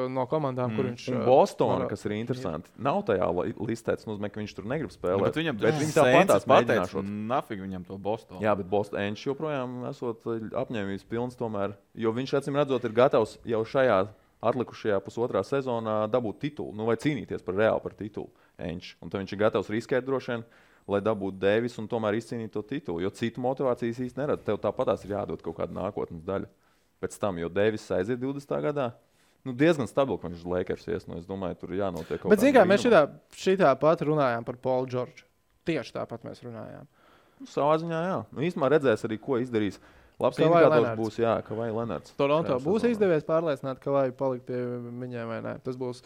no komandām, kur viņš... Un Bostona, kas ir interesanti, nav tajā listēts, nozīmē, ka viņš tur negrib spēlēt. Bet viņi tāpatās mēģināšot. Nafig viņam to Bostonu. Jā, bet Bostonš joprojām esot apņēmības pilns tomēr, jo viņš acīm redzot ir gatavs jau šajā atlikušajā pusotrā sezonā dabūt titulu, vai cīnīties reāli par titulu. Un tad viņš ir gatavs riskēt droši vien. lai dabūtu Deivis un tomēr izcīnītu to titulu. Jo citu motivācijas īsti neredz. Tev tāpatās ir jādod kaut kāda nākotnes daļa. Pēc tam, jo Deivis aiziet 20. gadā, diezgan stabili, ka viņš uz Lakers ies. Es domāju, tur jānotiek kaut kas. Bet, zināmā mērā, mēs šitā pat runājām par Paulu Džordžu. Tieši tāpat mēs runājām. Savā ziņā, jā. Īstumā redzēs arī, ko izdarīs. Labs indikators būs, ka vai Lenards. Toronto būs izdevies pārliecināt, ka vai palikt pie viņiem vai nē. Tas būs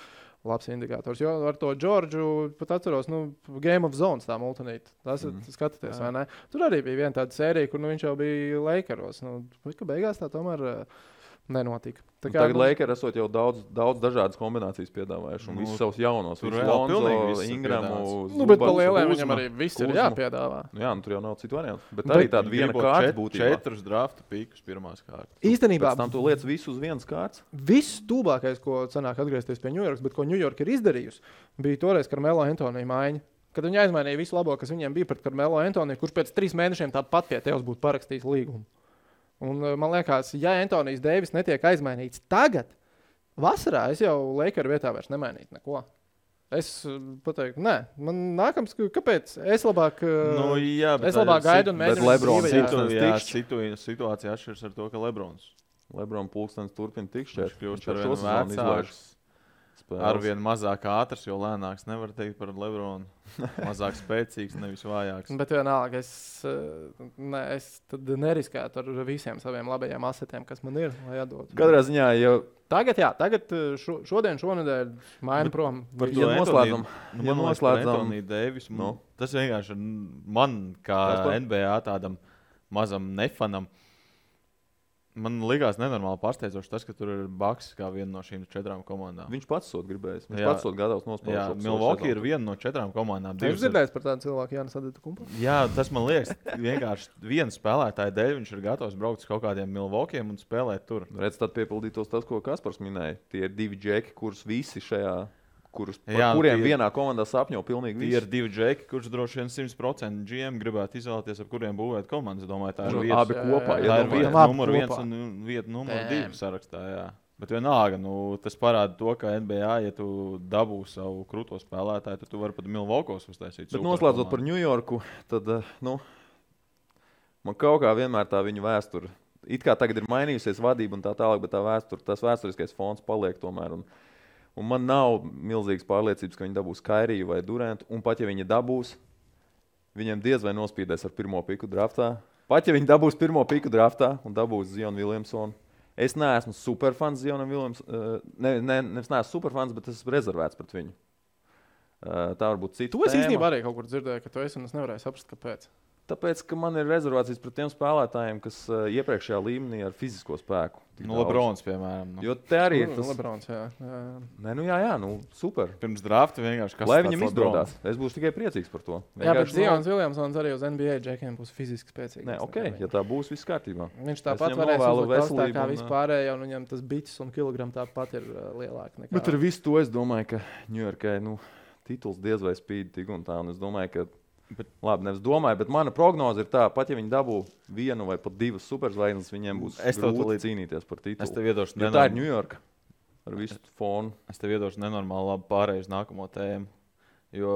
labs indikators. Jo ar to Džordžu pat atceros, Game of Zones tā multinīta. Tas skatāties, vai ne? Tur arī bija viena tāda sērija, kur viņš jau bija Lakeros. Ka beigās tā tomēr nenotika. Tagad Lakers esot jau daudz dažādas kombinācijas piedāvājuši. Un visus savus jaunos. Tur jau Lonzo, Ingramu. Bet pa lieliem viņam arī viss ir jāpiedāvā. Tur jau nav citu variantu. Bet arī tāda viena kārta būtībā. 4 draftu pīkus pirmās kārtas. Īstenībā. Pēc tam tu lietas visu uz vienas kārtas. Viss tūlākais, ko sanāk atgriezties pie New York, bet ko New York ir izdarījusi, bija toreiz Carmelo Anthony maiņa. Kad viņi aizmainīja visu labo, kas viņiem bija pret Carmelo Anthony, kurš pēc 3 mēnešiem tāpat pie tevis būtu parakstījis līgumu. Un man liekas, ja Antonijs Deivis netiek aizmainīts tagad, vasarā es jau Lakeru vietā vairs nemainītu neko. Es pateiktu, nē, man nākams, kāpēc? Es labāk, es labāk gaidu un mēģinu. Bet Lebrons situācija atšķiras ar to, ka Lebrons pulkstenis turpina tikšķēt. Viņš kļūst ar vien vecāks. Arvien mazāk ātrs, jo lēnāks nevar teikt par Lebronu. Mazāk spēcīgs, nevis vājāks. Bet vienalga, es tad neriskētu ar visiem saviem labajiem asetiem, kas man ir, lai atdotu. Katrā ziņā, Tagad šonedēļ maina prom. Ja noslēdzam Deivis, tas vienkārši man, kā NBA tādam mazam nefanam, man likās nenormāli pārsteidzoši tas, ka tur ir Bucks kā viena no šīm 4 komandām. Viņš pats sot gribējis. Viņš pats sot gatavs nospēlēt. Jā, Milwaukee ir viena no 4 komandām. Jūs dzirdējāt par tādu cilvēku, Jānis Adetokumpu? Jā, tas man liekas, vienkārši viena spēlētāja dēļ viņš ir gatavs braukt uz kaut kādiem Milwaukeeiem un spēlēt tur. Redz, tad piepildītos tas, ko Kaspars minēja. Tie ir 2 džeki, kurus visi šajā... kuriem vienā komandā sapņo pilnīgi visi. Tie ir 2 džeki, kurš droši vien 100% GM gribētu izvēlēties, ar kuriem būvēt komandas. Domāju, tā ir vieta. Abi kopā. Tā ir vieta numur 1 un vieta numur 2 sarakstā. Jā. Bet vienalga, tas parāda to, ka NBA, ja tu dabū savu krūto spēlētāju, tad tu vari pat Milwaukos uztaisīt. Bet noslēdzot par New Yorku, tad man kaut kā vienmēr tā viņa vēsture. It kā tagad ir mainījusies vadība un tā tālāk, bet tas vēsturiskais fons paliek tomēr. Un man nav milzīgas pārliecības, ka viņi dabūs Kairiju vai Durantu. Un pat ja viņi dabūs, viņiem diez vai nospīdēs ar 1. piku draftā. Pat ja viņi dabūs 1. piku draftā un dabūs Zionu Williamsonu. Es neesmu superfans Zionam Williamsonam. Nevis neesmu superfans, bet es esmu rezervēts pret viņu. Tā varbūt cita tēma. Tu īstenībā arī kaut kur dzirdēji, ka tu esi un es nevarēju saprast, kāpēc. Tāpēc, ka man ir rezervācijas pret tiem spēlētājiem, kas iepriekšējā līmenī ar fizisko spēku. Lebrons, piemēram. Jo te arī ir tas... Lebrons, jā. Jā, super. Pirms drafta vienkārši kas lai viņam izdodas. Es būšu tikai priecīgs par to. Jā, bet Zions Williamsons arī uz NBA džekiem būs fiziski spēcīgs. Nē, ja tā būs, viss kārtībā. Viņš tāpat varēs uzlikt tā kā vispārējā, un viņam tas bites un kilogram tāpat ir lielāk nekā. Bet ar visu to es domāju, ka New Yorkai, tituls diez vai spīd tik un tā, un es domāju, ka labi, nevis domāju, bet mana prognoze ir tā, pat ja viņi dabū 1 vai pat 2 superzvaigznes, viņiem būs grūti cīnīties par titulu. Es tev iedošu tā ir New York ar visu fonu. Es tev iedošu nenormāli labi pārēju uz nākamo tēmu, jo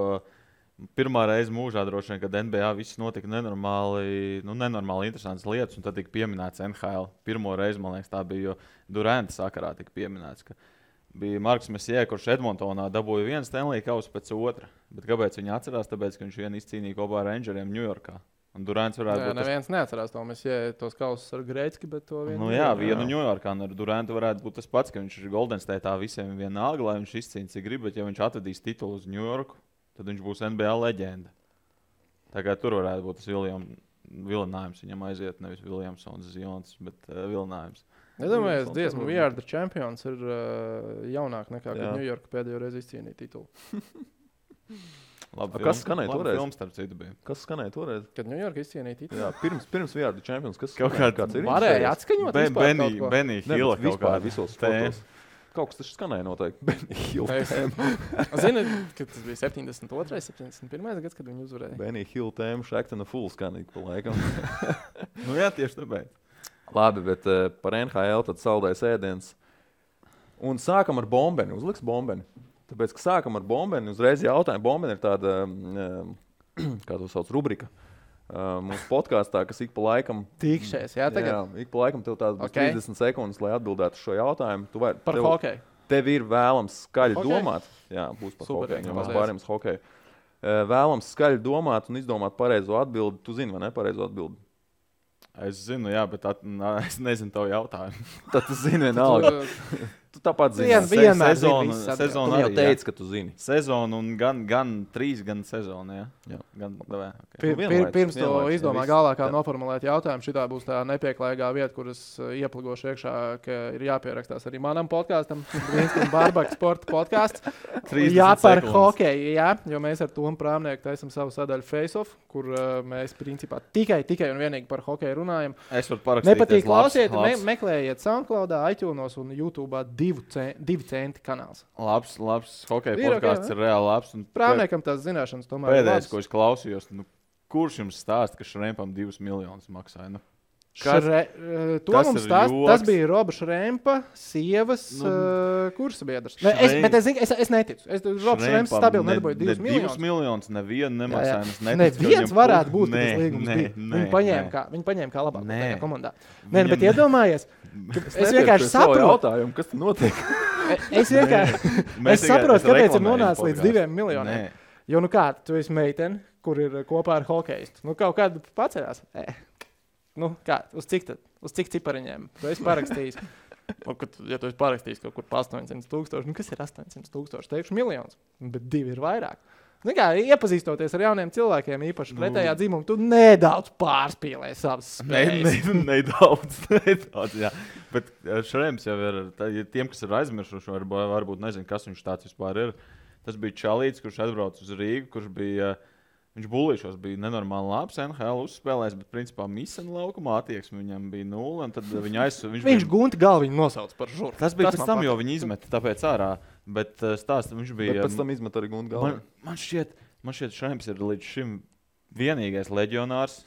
pirmā reize mūžā droši vien, kad NBA viss notika nenormāli interesantas lietas, un tad tika pieminēts NHL. Pirmo reizi, man liekas, tā bija, jo Duranta sakarā tika pieminēts, ka bija Marks Messie, kurš Edmontonā dabūja 1 Stanley kausu pēc 2. Bet kāpēc viņi atcerās? Tāpēc, ka viņš vien izcīnīja kopā ar Rangeriem Ņujorkā. Un Durants varētu būt... Neviens neatcerās to Messie, tos kausus ar Greitski, bet to vienu... vienu Ņujorkā. Un ar Durantu varētu būt tas pats, ka viņš ir Golden State'ā visiem vienalga, lai viņš izcīnīja, cik grib, bet ja viņš atvedīs titulu uz Ņujorku, tad viņš būs NBA leģenda. Tagad tur varētu būt tas vilinājums. Viņam aiziet nevis Williamsons, Zions, bet vilinājums. Es domāju, ka dziesmu We Are The Champions ir jaunāk nekā, kad New York pēdējo reizi izcīnīja titulu. Labi, kas skanēja toreiz? Films, starp citu, bija. Kas skanēja toreiz? Kad New York izcīnīja titulu? Jā, pirms We Are The Champions. Kas kāds ir? Varēja atskaņot Benny Hilla kaut kā. Visos fotos. Kaut kas taču skanēja noteikti. Benny Hill tēma. Zini, ka tas bija 72. 71. gads, kad viņi uzvarēja. Benny Hill tēma, Shaqtin' a Fool skanīgi pa laikam. Jā, tieši tāpēc. Labi, bet par NHL tad saldais ēdiens. Un sākam ar Bombeni. Uzliks Bombeni. Tāpēc, ka sākam ar Bombeni, uzreiz jautājumu. Bombeni ir tāda kā to sauc, rubrika. Mūsu podkāstā, kas ik pa laikam... Tikšies, jā, tagad? Jā, ik pa laikam tev tādas 30 sekundes, lai atbildētu šo jautājumu. Par hokeju. Tev ir vēlams skaļi domāt. Jā, būs par hokeju, jo mēs pārējām uz hokeju. Vēlams skaļi domāt un izdomāt pareizo atbildi. Tu zini, vai ne pareizo atbildi? Es zinu, jā, bet es nezinu tavu jautājumu. Tad tu zini vienalga. Tu tāpat zini. Vienmēr sezona Tu jau teici, ka tu zini. Sezonu un gan 3, gan sezonu, jā. Pirms to izdomā galvā kā noformulēt jautājumu, šitā būs tā nepieklājīgā vieta, kuras iepligošu iekšā, ka ir jāpierakstās arī manam podkāstam, Vinstam Barbaka sporta podkāsts. Jā, par hokeju, jā, jo mēs ar Tomu Prāmnieku taisam savu sadaļu Face-Off, kur mēs principā tikai un vienīgi par hokeju runājam. Es varu parakstīties. Nepatīk klausiet, meklējiet SoundCloudā, iTunesos un YouTube'ā 2 centi kanāls. Labs hokeja podkāsts ir reāli labs. Prāmniekam tās zināšanas tomēr ir labs. Pēdējais, ko es klausījos, kurš jums stāsta, ka Šrempam 2 miljonus maksāja? Tas bija Roba Šrempa sievas kursa biedrs. Es neticu. Roba Šremps stabili nedabūja 2 miljonus. 2 miljonus nevienu nemaksāja. Neviens varētu būt, ka tas līgums bija. Viņi paņēma kā labāk komandā. Bet iedomājies, es vienkārši saprotu, kas tur notiek. Es saprotu, kāpēc ir nonācis līdz 2 miljoniem. Jo tu esi meitene, kur ir kopā ar hokeistu. Kaut kādu paceļās. Uz cik cipariņiem? Tu esi parakstījis. Ja tu esi parakstījis kaut kur pa 800,000, kas ir 800,000? Teikšu miljonus, bet 2 ir vairāk. Iepazīstoties ar jauniem cilvēkiem, īpaši pretējā dzimuma, tu nedaudz pārspīlē savas spējas. Nedaudz, jā. Bet Šrems jau ir, tiem, kas ir aizmirsuši, varbūt nezinu, kas viņš tāds vispār ir. Tas bija čalīts, kurš atbrauc uz Rīgu, kurš bija... Viņš bulīšos bija nenormāli labs, NHL uzspēlējis, bet principā misena laukumā attieksme viņam bija 0. Un tad viņš gunti galvu viņu nosauc par žuru. Tas bija pēc tam, jo viņi izmeta tāpēc ārā. Bet stāsta, viņš bija... Bet pēc tam izmeta arī gunti galvu. Man šķiet Šrems ir līdz šim vienīgais leģionārs,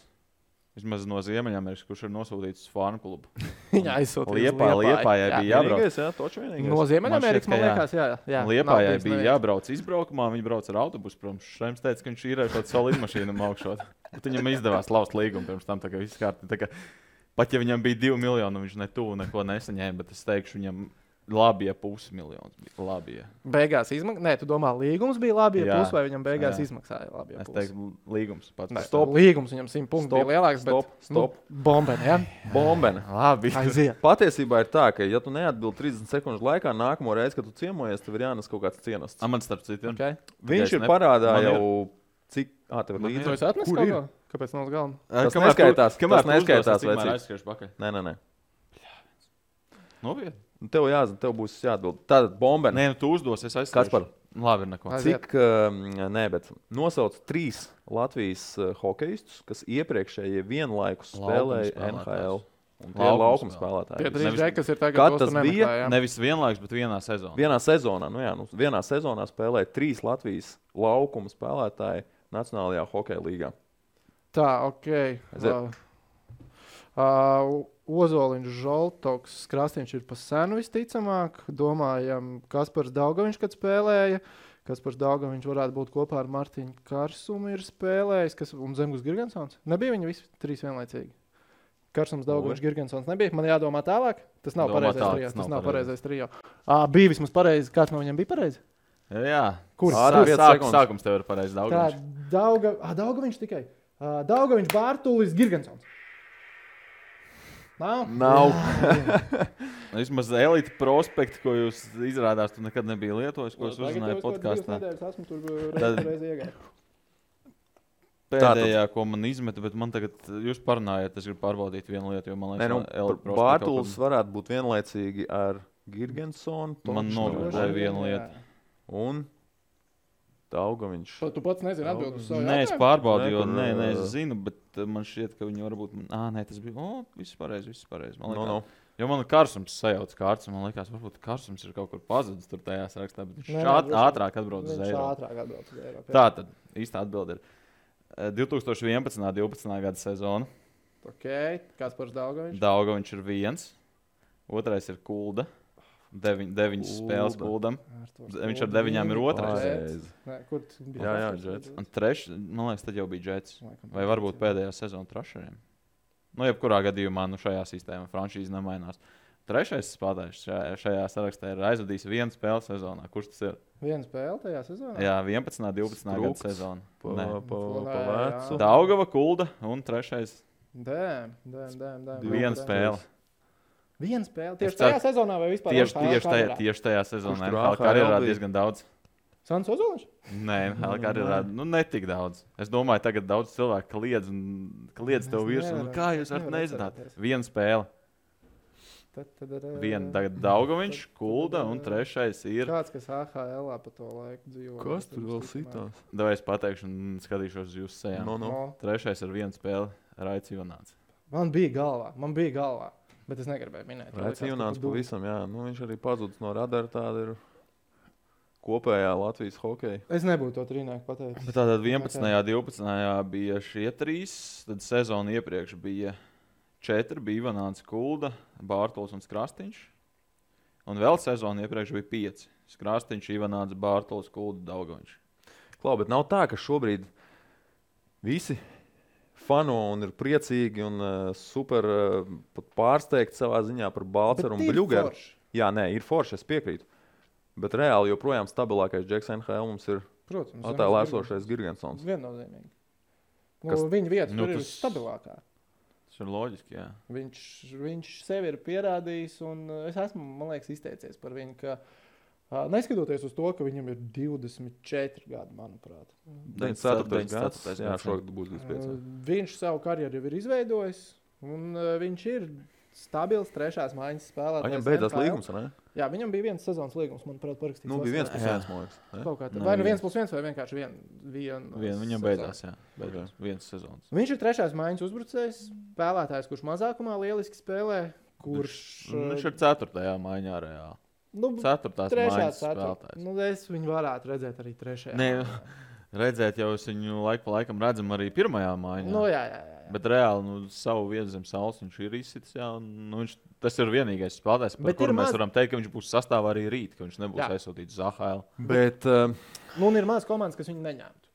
vismaz no Ziemeļamerikas, kurš ir nosūtīts uz Farm klubu. Viņa aizsūtīja Liepājai bija jābrauc. Jā, toču vienīgais. No Ziemeļamerikas, man liekas, jā. Liepājai bija jābrauc izbraukumā, viņi brauc ar autobusu, protams. Šrems teica, ka viņš īrēja šādu savu lidmašīnu augšot. Bet viņam izdevās laust līgumu pirms tam, tā kā viss kārtībā. Pat ja viņam bija 2 miljoni, viņš neko nesaņēma, bet es teikšu viņam... Labi, ja 500 miljonus bija labi. Ja. Beigās izmaksāja. Nē, tu domā, līgums bija labi, ja pusi, vai viņam beigās izmaksāja labi. Ja es teiktu, līgums pats. Līgums viņam 100 punktu bija lielāks. Stop. Bombeni, ja? Bombeni. Labi. Aiziet. Patiesībā ir tā, ka, ja tu neatbildi 30 sekundžu laikā, nākamo reizi, kad tu ciemojies, tev ir jānes kaut kāds cienasts. Man starp citu. Okay. Viņš ir parādā jau cik... tev ir līdzi. Tu esi atnes kaut ko? Kāpēc nav uz galma? Tas neskaitās. Tas neskaitās, vecīt. Nē. Nopietni. Tev jāzina, tev būs jāatbild. Tātad bombeni. Nē, tu uzdos, es aizstāšu. Kaspar? Labi, ir neko. Bet nosauc 3 Latvijas hokejistus, kas iepriekšējie vienlaikus spēlēja NHL. Un tie ir laukuma spēlētāji. Tie 3 džeki, kas ir tagad tas bija? Nevis vienlaikus, bet vienā sezonā. Vienā sezonā spēlēja 3 Latvijas laukuma spēlētāji Nacionālajā hokeja līgā. Tā, Ozoliņš, Žoltoks, Krastīņš ir pa senu visticamāk. Domājam, Kaspars Daugaviņš, kad spēlēja. Kaspars Daugaviņš varētu būt kopā ar Martiņu Karsumu ir spēlējis. Un Zemgus Girgensons. Nebija viņi visi 3 vienlaicīgi? Karsums, Daugaviņš, Girgensons nebija. Man jādomā tālāk. Tas nav pareizais trio. Bija vismaz pareizi. Kāds no viņiem bija pareizi? Jā. Kur? Sākums tev ir pareizi Daugaviņš. Daugaviņš tikai. Daugaviņš, Bārtulis, Girgensons. Nav. Vismaz elite prospekti, ko jūs izrādās, tu nekad nebija lietojis, ko es uzzināju podkāstā. Esmu tur reizi iegāju. Pēdējā, ko man izmeta, bet man tagad, jūs parunājat, es gribu pārbaudīt vienu lietu, jo man liekas, Bārtulis varētu būt vienlaicīgi ar Girgensonu. Man novērdēja vienu lietu. Un Daugaviņš. Tu pats nezini atbildi uz savu jautājumu? Nē, es pārbaudīju, jo es zinu, bet man šķiet, ka viņi varbūt... tas bija... viss pareizi. Jo man Karsums sajauc kārts, un man liekas, varbūt Karsums ir kaut kur pazudis tur tajā sarakstā, bet viņš ātrāk atbrauc uz Eiropu. Tātad, īstā atbilde ir 2011.12. gada sezona. Kaspars Daugaviņš. Daugaviņš ir 1. Otrais ir Kulda. 9 spēles Kuldam. Viņš ar 9 ir otrais. Kur bija? Jā, Jets. Un man liekas, tad jau bija Jets. Vai varbūt pēdējā sezona Trašeriem. Nu, jebkurā gadījumā šajā sistēmā franšīze nemainās. Trešais spēlētājs šajā sarakstā ir aizvadījis 1 spēli sezonā. Kurš tas ir? 1 spēle tajā sezonā? Jā, 11. 12. gada sezona. Pa vecu. Daugava, Kulda un trešais. Dēm. 1 spēle. 1 spēle? Tieši tajā sezonā vai vispār? Tieši tajā sezonā. Karjerā diezgan daudz. Sants Ozoliņš? Nē, karjerā netik daudz. Es domāju, tagad daudz cilvēku kliedz tev virsū. Kā jūs varat nezināt? 1 spēle. Tagad Daugaviņš, Kulda un trešais ir... Kāds, kas AHL-ā pa to laiku dzīvo. Kas tur vēl sitās? Davai es pateikšu un skatīšos uz jūsu sejām. Trešais ir 1 spēle, Raits Ivonāts. Man bija galvā, bet es negribēju minēt. Raits Ivonāts pavisam, jā. Viņš arī pazudis no radara, tāda ir kopējā Latvijas hokeja. Es nebūtu to trīnieku pateicis. Bet tātad 11. 12. bija šie 3, tad sezonu iepriekš bija 4, bija Ivonāts, Kulda, Bārtols un Skrastiņš. Un vēl sezonu iepriekš bija 5. Skrastiņš, Ivonāts, Bārtols, Kulda, Daugaviņš. Klau, bet nav tā, ka šobrīd visi fano un ir priecīgi un super pat pārsteigti savā ziņā par Balceru un Bļugeru. Jā, nē, ir forši, es piekrītu. Bet reāli joprojām stabilākais džeks NHL mums ir attēlā esošais Girgensons. Viennozīmīgi. Viņa vieta tur ir stabilākā. Tas ir loģiski, jā. Viņš sevi ir pierādījis, un es esmu, man liekas, izteicies par viņu, ka neskatoties uz to, ka viņam ir 24 gadi, manuprāt. 94. gads, jā, šogad būs 25. Viņš savu karjeru jau ir izveidojis, un viņš ir stabils trešās maiņas spēlētājs. Viņam beidzās līgums, ne? Jā, viņam bija 1 sezonas līgums, manuprāt, parakstīts. Nu, bija 1+1, man liekas. Vai nu 1+1 vai vienkārši viena viņam beidzās, jā. Beidzās 1 sezonas. Viņš ir trešās maiņas uzbrucējs, spēlētājs, kurš mazākumā lieliski spēlē, kurš... Viņš ir 4. maiņā reāli. 4. maiņas spēlētājs. Es viņu varētu redzēt arī 3. Nē, redzēt jau es viņu laiku pa laikam redzam arī 1. maiņā. Jā. Bet reāli savu vietu zem saules viņš ir izsitis. Tas ir vienīgais spēlētājs, par kuru mēs varam teikt, ka viņš būs sastāvā arī rīt, ka viņš nebūs aizsūtīts uz AHL. Bet ir maz komandas, kas viņu neņemtu.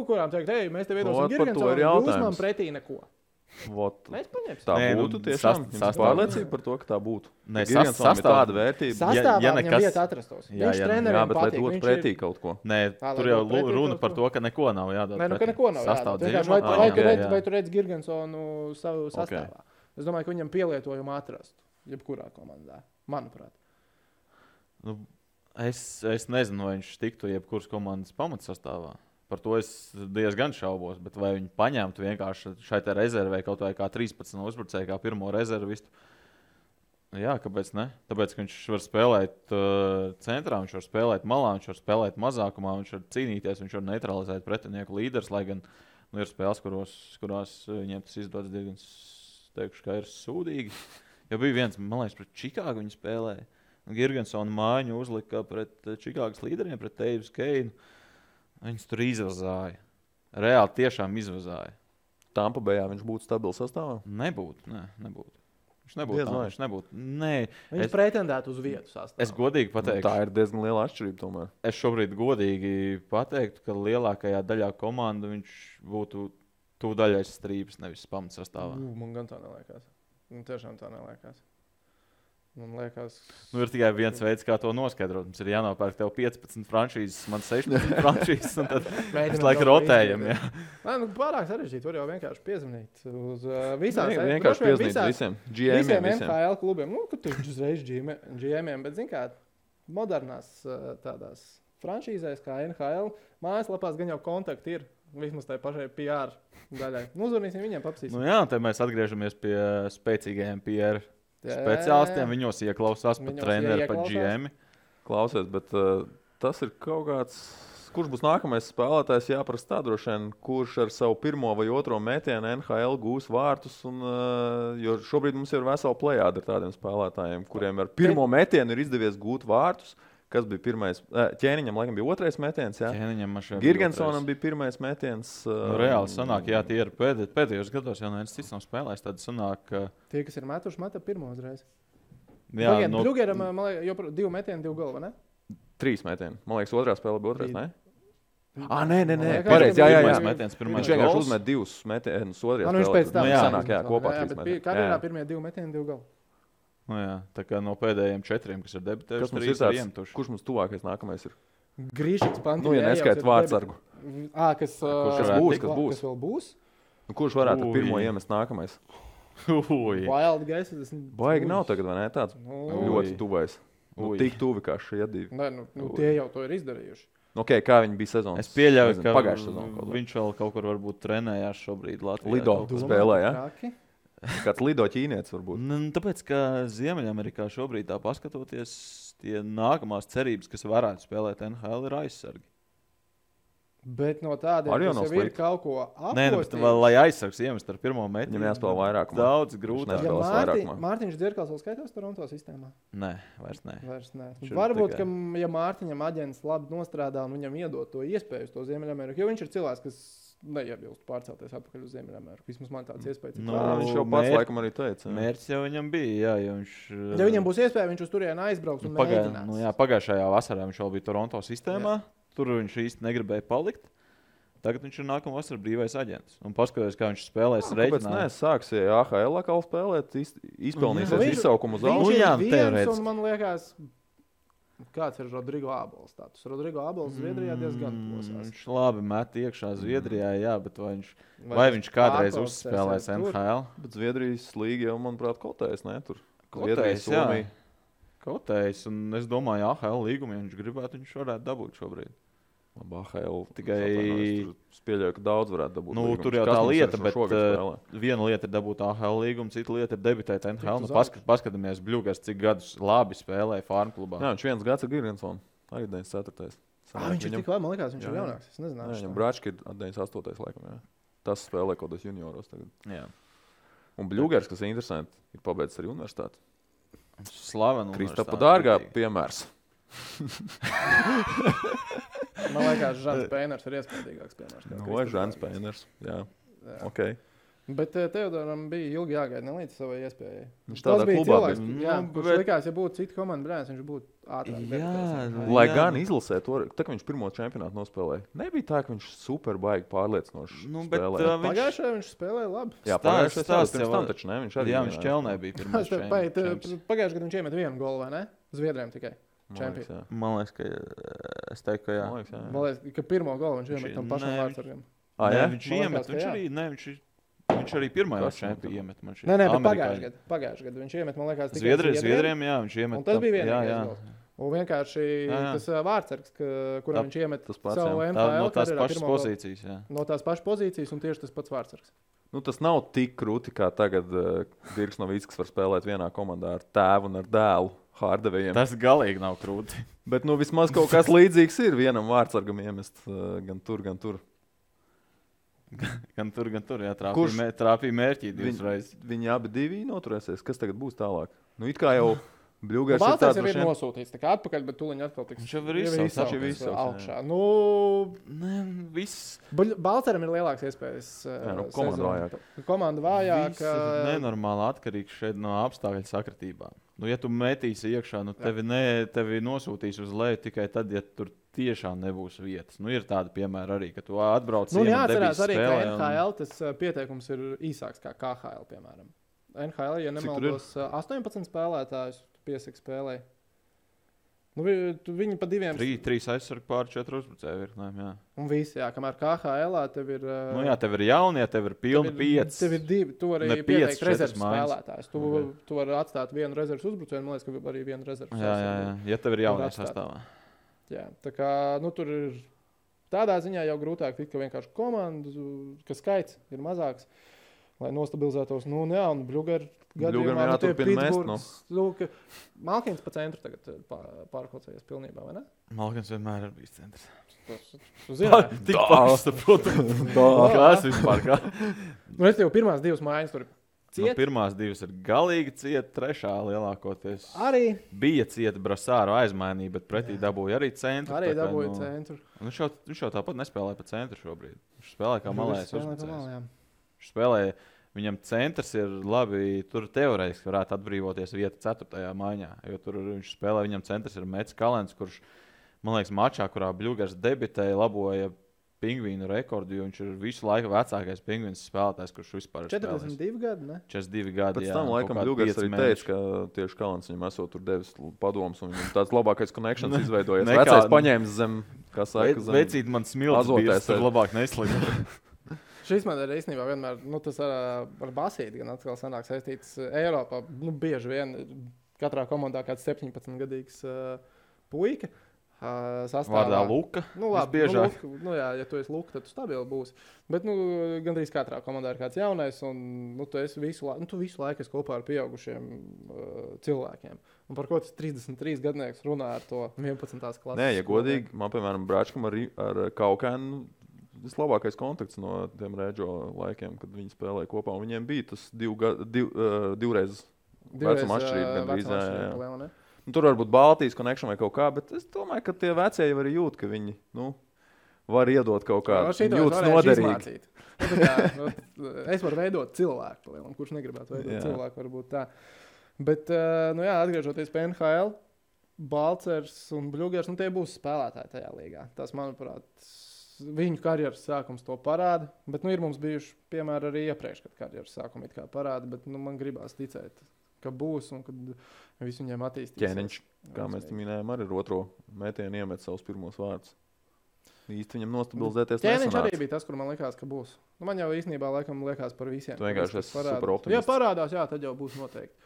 Kurām teikt, mēs tev iedosim Girgensonu, jūs man pretī neko. Mēs paņemsim. Tā būtu tiešām pārliecība par to, ka tā būtu. Girgensonam ir tāda vērtība. Sastāvā viņam vieta atrastos. Viņš treneriem bet lai dotu pretī kaut ko. Nē, tur jau runa par to, ka neko nav jādod. Nē, ka neko nav jādod. Vai tu redzi Girgensonu savu sastāvā? Es domāju, ka viņam pielietojumu atrastu. Jebkurā komandā, manuprāt. Es nezinu, vai viņš tiktu jebkuras komandas pamatsastāvā. Par to es diezgan šaubos, bet vai viņi paņemtu vienkārši šai te rezervē kaut vai kā 13 uzbrucēju, kā pirmo rezervistu? Jā, kāpēc ne? Tāpēc, ka viņš var spēlēt centrā, viņš var spēlēt malā, viņš var spēlēt mazākumā, viņš var cīnīties, viņš var neutralizēt pretinieku līderus, lai gan ir spēles, kurās viņiem tas izdodas diezgan, teikšu, kā ir sūdīgi. Jo bija viens, man liekas, pret Čikāgu viņi spēlēja. Girgensona mājiņu uzlika pret Čikāgas līderiem, pret Teivis Keinu. Viņus tur izvazāja. Reāli tiešām izvazāja. Tampa Bayā viņš būtu stabils sastāvā? Nebūtu. Viņš nebūtu. Viņš pretendētu uz vietu sastāvā. Es godīgi pateiktu. Tā ir diezgan liela atšķirība tomēr. Es šobrīd godīgi pateiktu, ka lielākajā daļā komandu viņš būtu tuvu daļai strīpas, nevis pamatsastāvā. Man gan tā neliekas. Tiešām tā neliekas. Man liekas... ir tikai viens veids, kā to noskaidrot. Mums ir jānopērk tev 15 franšīzes, man 16 franšīzes, un tad mēs laiku rotējam. Pārāk sarežģīti, var jau vienkārši piezvanīt uz visām. Vienkārši piezvanīt visiem GM-iem. NHL klubiem. Ka tu uzreiz GM-iem, bet zin kā, modernās tādās franšīzēs kā NHL, mājaslapās gan jau kontakti ir. Vismaz tai pašai PR daļai. Uzvarnīsim viņiem, papsīsim. Jā, te mēs atgriežamies pie spēcīgajiem PR speciālistiem. Viņos ieklausās pat treneri, pat GM. Klausies, bet tas ir kaut kāds... Kurš būs nākamais spēlētājs, jāprasa tā droši vien, kurš ar savu pirmo vai otro metienu NHL gūs vārtus. Jo šobrīd mums ir vesela plejāda ar tādiem spēlētājiem, kuriem ar pirmo metienu ir izdevies gūt vārtus. Kas bija pirmais? Ķēniņam laikam bija otrais metiens, jā? Girgensonam bija pirmais metiens. Reāli sanāk, jā, tie ir pēdējos gados, jau neviens cits nav spēlējis. Tad sanāk, Tie, kas ir metuši, meta pirmo uzreiz. Jā, Bļugeram, man liekas, jau 2 metieni, 2 galva, ne? 3 metieni. Man liekas, otrā spēlē bija otrais, ne? Nē. liekas, Pareizi, jā. pirmais metiens, pirmais Viņš vienkārši gols. uzmet 2 metienus otrajā Nu, viņš pēc tam sanāk, kopā jā, 3 bet metieni. karjerā pirmie 2 metieni, 2 galva. Nu, jā, tā kā no pēdējiem 4, kas ir debitējuši, Kas mums ir 3 ir tāds, iemetuši. kurš mums tuvākais nākamais ir? Grīšiks Pantīns. Nu, ja neskait vārdsargu. Kas būs? Kas vēl būs? Nu, kurš varētu pirmo iemest nākamais? Wild Guys. Baigi nav tagad, vai ne? Tāds ļoti tuvais. Tik tuvi kā šie 2. Nē, tie jau to ir izdarījuši. Okay, kā viņi bija sezonas? Es pieļauju, ka pagājušā sezonā viņš vēl kaut kur varbūt trenējās šobrīd Latvijā. Lido spēlē, ja? Traki? Kāds lido ķīnietis varbūt. Tāpēc, ka Ziemeļamerikā šobrīd tā paskatoties, tie nākamās cerības, kas varētu spēlēt NHL, ir aizsargi. Bet no tādiem, Arī jau kas nav jau ir slikti. kaut ko Nē, bet vēl, lai aizsargs iemest ar pirmo metienu, Viņam jāspēlē vairāk. daudz Viņš grūtāk. nespēlē. Spēlēs vairākumā. Mārtiņš Dzirkals vēl skaitās Toronto sistēmā? Nē, vairs nē. Vairs nē. Šur Varbūt, tikai. ka ja Mārtiņam aģents labi nostrādā un viņam iedod to iespēju uz to Ziemeļameriku, jo viņš ir cilvēks, kas neiebilst pārcelties atpakaļ uz Ziemeļameriku. Vismaz man tāds iespējas ir. Nu, Viņš jau pats laikam arī teica. Mērķis jau viņam bija, jā, jo viņš... Ja viņam būs iespēja, viņš uz turieni aizbrauks un mēģinās. Pagājušajā vasarā viņš vēl bija Toronto sistēmā, tur viņš īsti negribēja palikt. Tagad viņš ir nākamā vasarā brīvais aģents. Un paskatās, kā viņš spēlēs Kāpēc reiķinā. sāks AHL atkal spēlēt, izpelnīsies izsaukumu uz Viņš augšu? ir jā, viens, teorētiski. un man liekas, kāds ir Rodrigo Ābols status. Rodrigo Ābols Zviedrijā diezgan plosās. Viņš labi met iekšā Zviedrijā, jā, bet vai viņš kādreiz uzspēlēs NHL? Bet Zviedrijas līga jau, manuprāt, kotējas, ne? Tur Kotējs, jā. Kotējs, un es domāju, AHL līgumu, ja viņš gribētu, viņš varētu dabūt šobrīd. Labi, AHL. Tikai- Es pieļauju, ka daudz varētu dabūt. Nu, līgumus. tur jau Kas tā mums lieta, ar šo bet šogad spēlē? viena lieta ir dabūt AHL līgumu, cita lieta ir debitēt NHL. Tikt Nu, uz paskatāmies, Bļugars, cik gadus labi spēlēja Farm klubā. Jā, viņš viens gads ir Girgensons. Arī 94. Viņš ir tik labi, man liekas, viņš ir Jā. jaunāks. Es nezināju. Viņam Brački ir 98. laikam, jā. Tas spēlē kaut kādos junioros tagad. Jā. Un Bļugars, kas ir interesanti, ir pabeidzis arī universitāti. Slavena. Kristapa Dārgā piemērs. Man liekas, Žants Pēners ir iespējīgāks piemērs. kā Vai Kristofers Žants Dārgājs. Pēners. Jā, Jā. ok. Bet Teodoram bija ilgi jāgaida ne līdz savai iespējai. Viņš Tas tādā bija klubā cilvēks, bija. jā, Nu, kurš bet- likās, ja būtu cita komanda brēns, viņš būtu ātrāk. Jā, debitējis. Lai Jā. gan izlasē to, tā kā viņš pirmo čempionātu nospēlēja, nebija tā, ka viņš super baigi pārliecinoši Nu, bet, spēlēja. Pagājušajā viņš spēlēja labi. Jā, stāsts- pagājušajā stāsts pirms jau- tam taču ne, viņš arī Jā, viņš vienā- ķelnē bija pirmais. Pagājušajā gadā viņš iemet 1 golu, vai ne? Zviedriem tikai. Man liekas, jā. Man liekas, ka es teiktu, ka jā. Man liekas, jā. Man liekas, ka pirmo golu viņš iemet tam pašam Nē, vārdsargam. Ah, Nē, jā? viņš Man iemet, liekas, ka viņš jā. arī, ne, viņš arī pirmajā Kas viņam čempionā iemet. Man šķiet. Nē, bet Amerikāņi. pagājušajā gadā viņš iemet, man liekas, tikai Zviedriem, jā, viņš iemet. Un tas bija jā, vienīgais jā. gols. Un vienkārši Jā. tas vārdsargs, kuram Tā- viņš iemet tas pats, savu jā. Tā, no NHL tās karjerā pašas pirmo golu. pozīcijas, jā. No tās pašas pozīcijas un tieši tas pats vārdsargs. Nu, tas nav tik krūti, kā tagad Dirks Novickis var spēlēt vienā komandā ar tēvu un ar dēlu Hārdevējiem. Tas galīgi nav krūti. Bet nu, vismaz kaut kas līdzīgs ir vienam vārdsargam iemest gan tur, gan tur. Gan tur, jā, Kurš? trāpīja mērķī divas reizes. Viņi abi divi noturēsies. Kas tagad būs tālāk? Nu, it kā jau Bļugars ir Balsārs tāds jau ir droši vien- nosūtīts, tā kā atpakaļ, bet tūliņ atkal tiks. Viņš jau ir izsaucis, viņš jau ir izsaucis, jā. augšā. Nu, Nē, viss. Balsāram ir lielāks iespējas. Jā, nu, komanda vājāka. Komanda vājāka. Viss ir nenormāli atkarīgs šeit no apstākļu sakritībām. Nu, ja tu metīsi iekšā, nu, tevi nosūtīs uz leju tikai tad, ja tur tiešām nebūs vietas. Nu, ir tādi piemēri arī, ka tu atbrauc Nu, iemet jāatcerās debijas arī, ka spēlē un- NHL tas pieteikums ir īsāks kā KHL, piemēram. NHL, ja Cik tur nemaldos, 18 spēlētājus piesaka spēlē. Nu, viņi pa diviem. Trīs aizsargi pār 4 uzbrucēju virknēm, jā. Un visi, jā, kamēr KHL tev ir. Nu, jā, tev ir jaunie, tev ir pilni 5. Tev ir divi, tu arī Ne pieci, pieteikt rezerves četras mājas. spēlētājus. Tu vari atstāt vienu rezerves uzbrucēju, man liekas, ka arī vienu rezerves. Jā, ja tev ir jaunie atstāt. sastāvā. Jā, tā kā nu, tur ir tādā ziņā jau grūtāk tikt, ka vienkārši komandu, ka skaits ir mazāks, lai nostabilizētos. Nu, jā, un Bļugar gadījumā jāturpina mest, Malkins pa centru tagad pārkaucējies pilnībā, vai ne? Malkins vienmēr ir bijis centrs. Tu zini, Tik pārsaprotams. Kas vispār kā? nu, es tev pirmās divas mājas tur Nu, ciet. pirmās divas ir galīgi cieta, trešā lielākoties. Arī Bija cieta Brasāru aizmainīja, bet pretī dabūja arī centru. tā kā, dabūja nu, centru. Viņš jau tāpat nespēlē pa centru šobrīd. Viņš spēlē kā malējs Spēlē pa uzbrucējs. malējām. Viņš spēlēja, Viņam centrs ir labi, tur teorētiski varētu atbrīvoties vieta 4. maiņā, jo tur viņš spēlē, viņam centrs ir Mets Kalens, kurš, man liekas, mačā, kurā Bļugars debitēja, laboja Pingvīnu rekordu, jo viņš ir visu laiku vecākais Pingvīns spēlētājs, kurš vispār ir 42 gadi, ne? 42 gadi, Pēc tam, laikam, Bļugars arī teica, ka tieši Kalens viņam esot tur devis padomus, un viņam tāds labākais connections izveidojies. Vecais paņēmis zem, kā saka, zem Vecīt man smilts bijis, tur labāk neslidot. Šis man ir īstenībā vienmēr, tas ar basīti gan atkal sanāk saistīts Eiropā. Bieži vien katrā komandā kāds 17-gadīgs puika. Vārdā Luka. Labi, Luka, ja tu esi Luka, tad tu stabili būsi. Bet gandrīz katrā komandā ir kāds jaunais, un tu visu laiku esi kopā ar pieaugušiem cilvēkiem. Un par ko tas 33 gadnieks runā ar to 11. klases? Nē, ja godīgi, man, piemēram, Bračkam ar Kaukēnu vislabākais kontakts no tiem Rēdžo laikiem, kad viņi spēlēja kopā. Un viņiem bija tas divreiz vecuma atšķirība. Tur var būt Baltijas connection vai kaut kā, bet es domāju, ka tie vecie jau arī jūt, ka viņi var iedot kaut kādu. Viņi jūtas noderīgi. Es varu veidot cilvēku, kurš negribētu veidot cilvēku, varbūt tā. Bet, atgriežoties pie NHL, Balcers un Bļugars, tie būs spēlētāji tajā līgā. Tas, manuprāt, viņu karjeras sākums to parāda, bet ir mums bijuši piemēri arī iepriekš, kad karjeras sākumi it kā parāda, bet man gribās ticēt, ka būs un kad visu viņiem attīstīsies. Ķēniņš, kā mēs minējām, arī ar otro metienu iemet savus pirmos vārdus. Īsti viņam nostabilizēties nesanāca. Ķēniņš arī bija tas, kur man likās, ka būs. Man jau īstenībā laikam liekas par visiem. Tu vienkārši esi super optimists. Ja parādās, tad jau būs noteikti.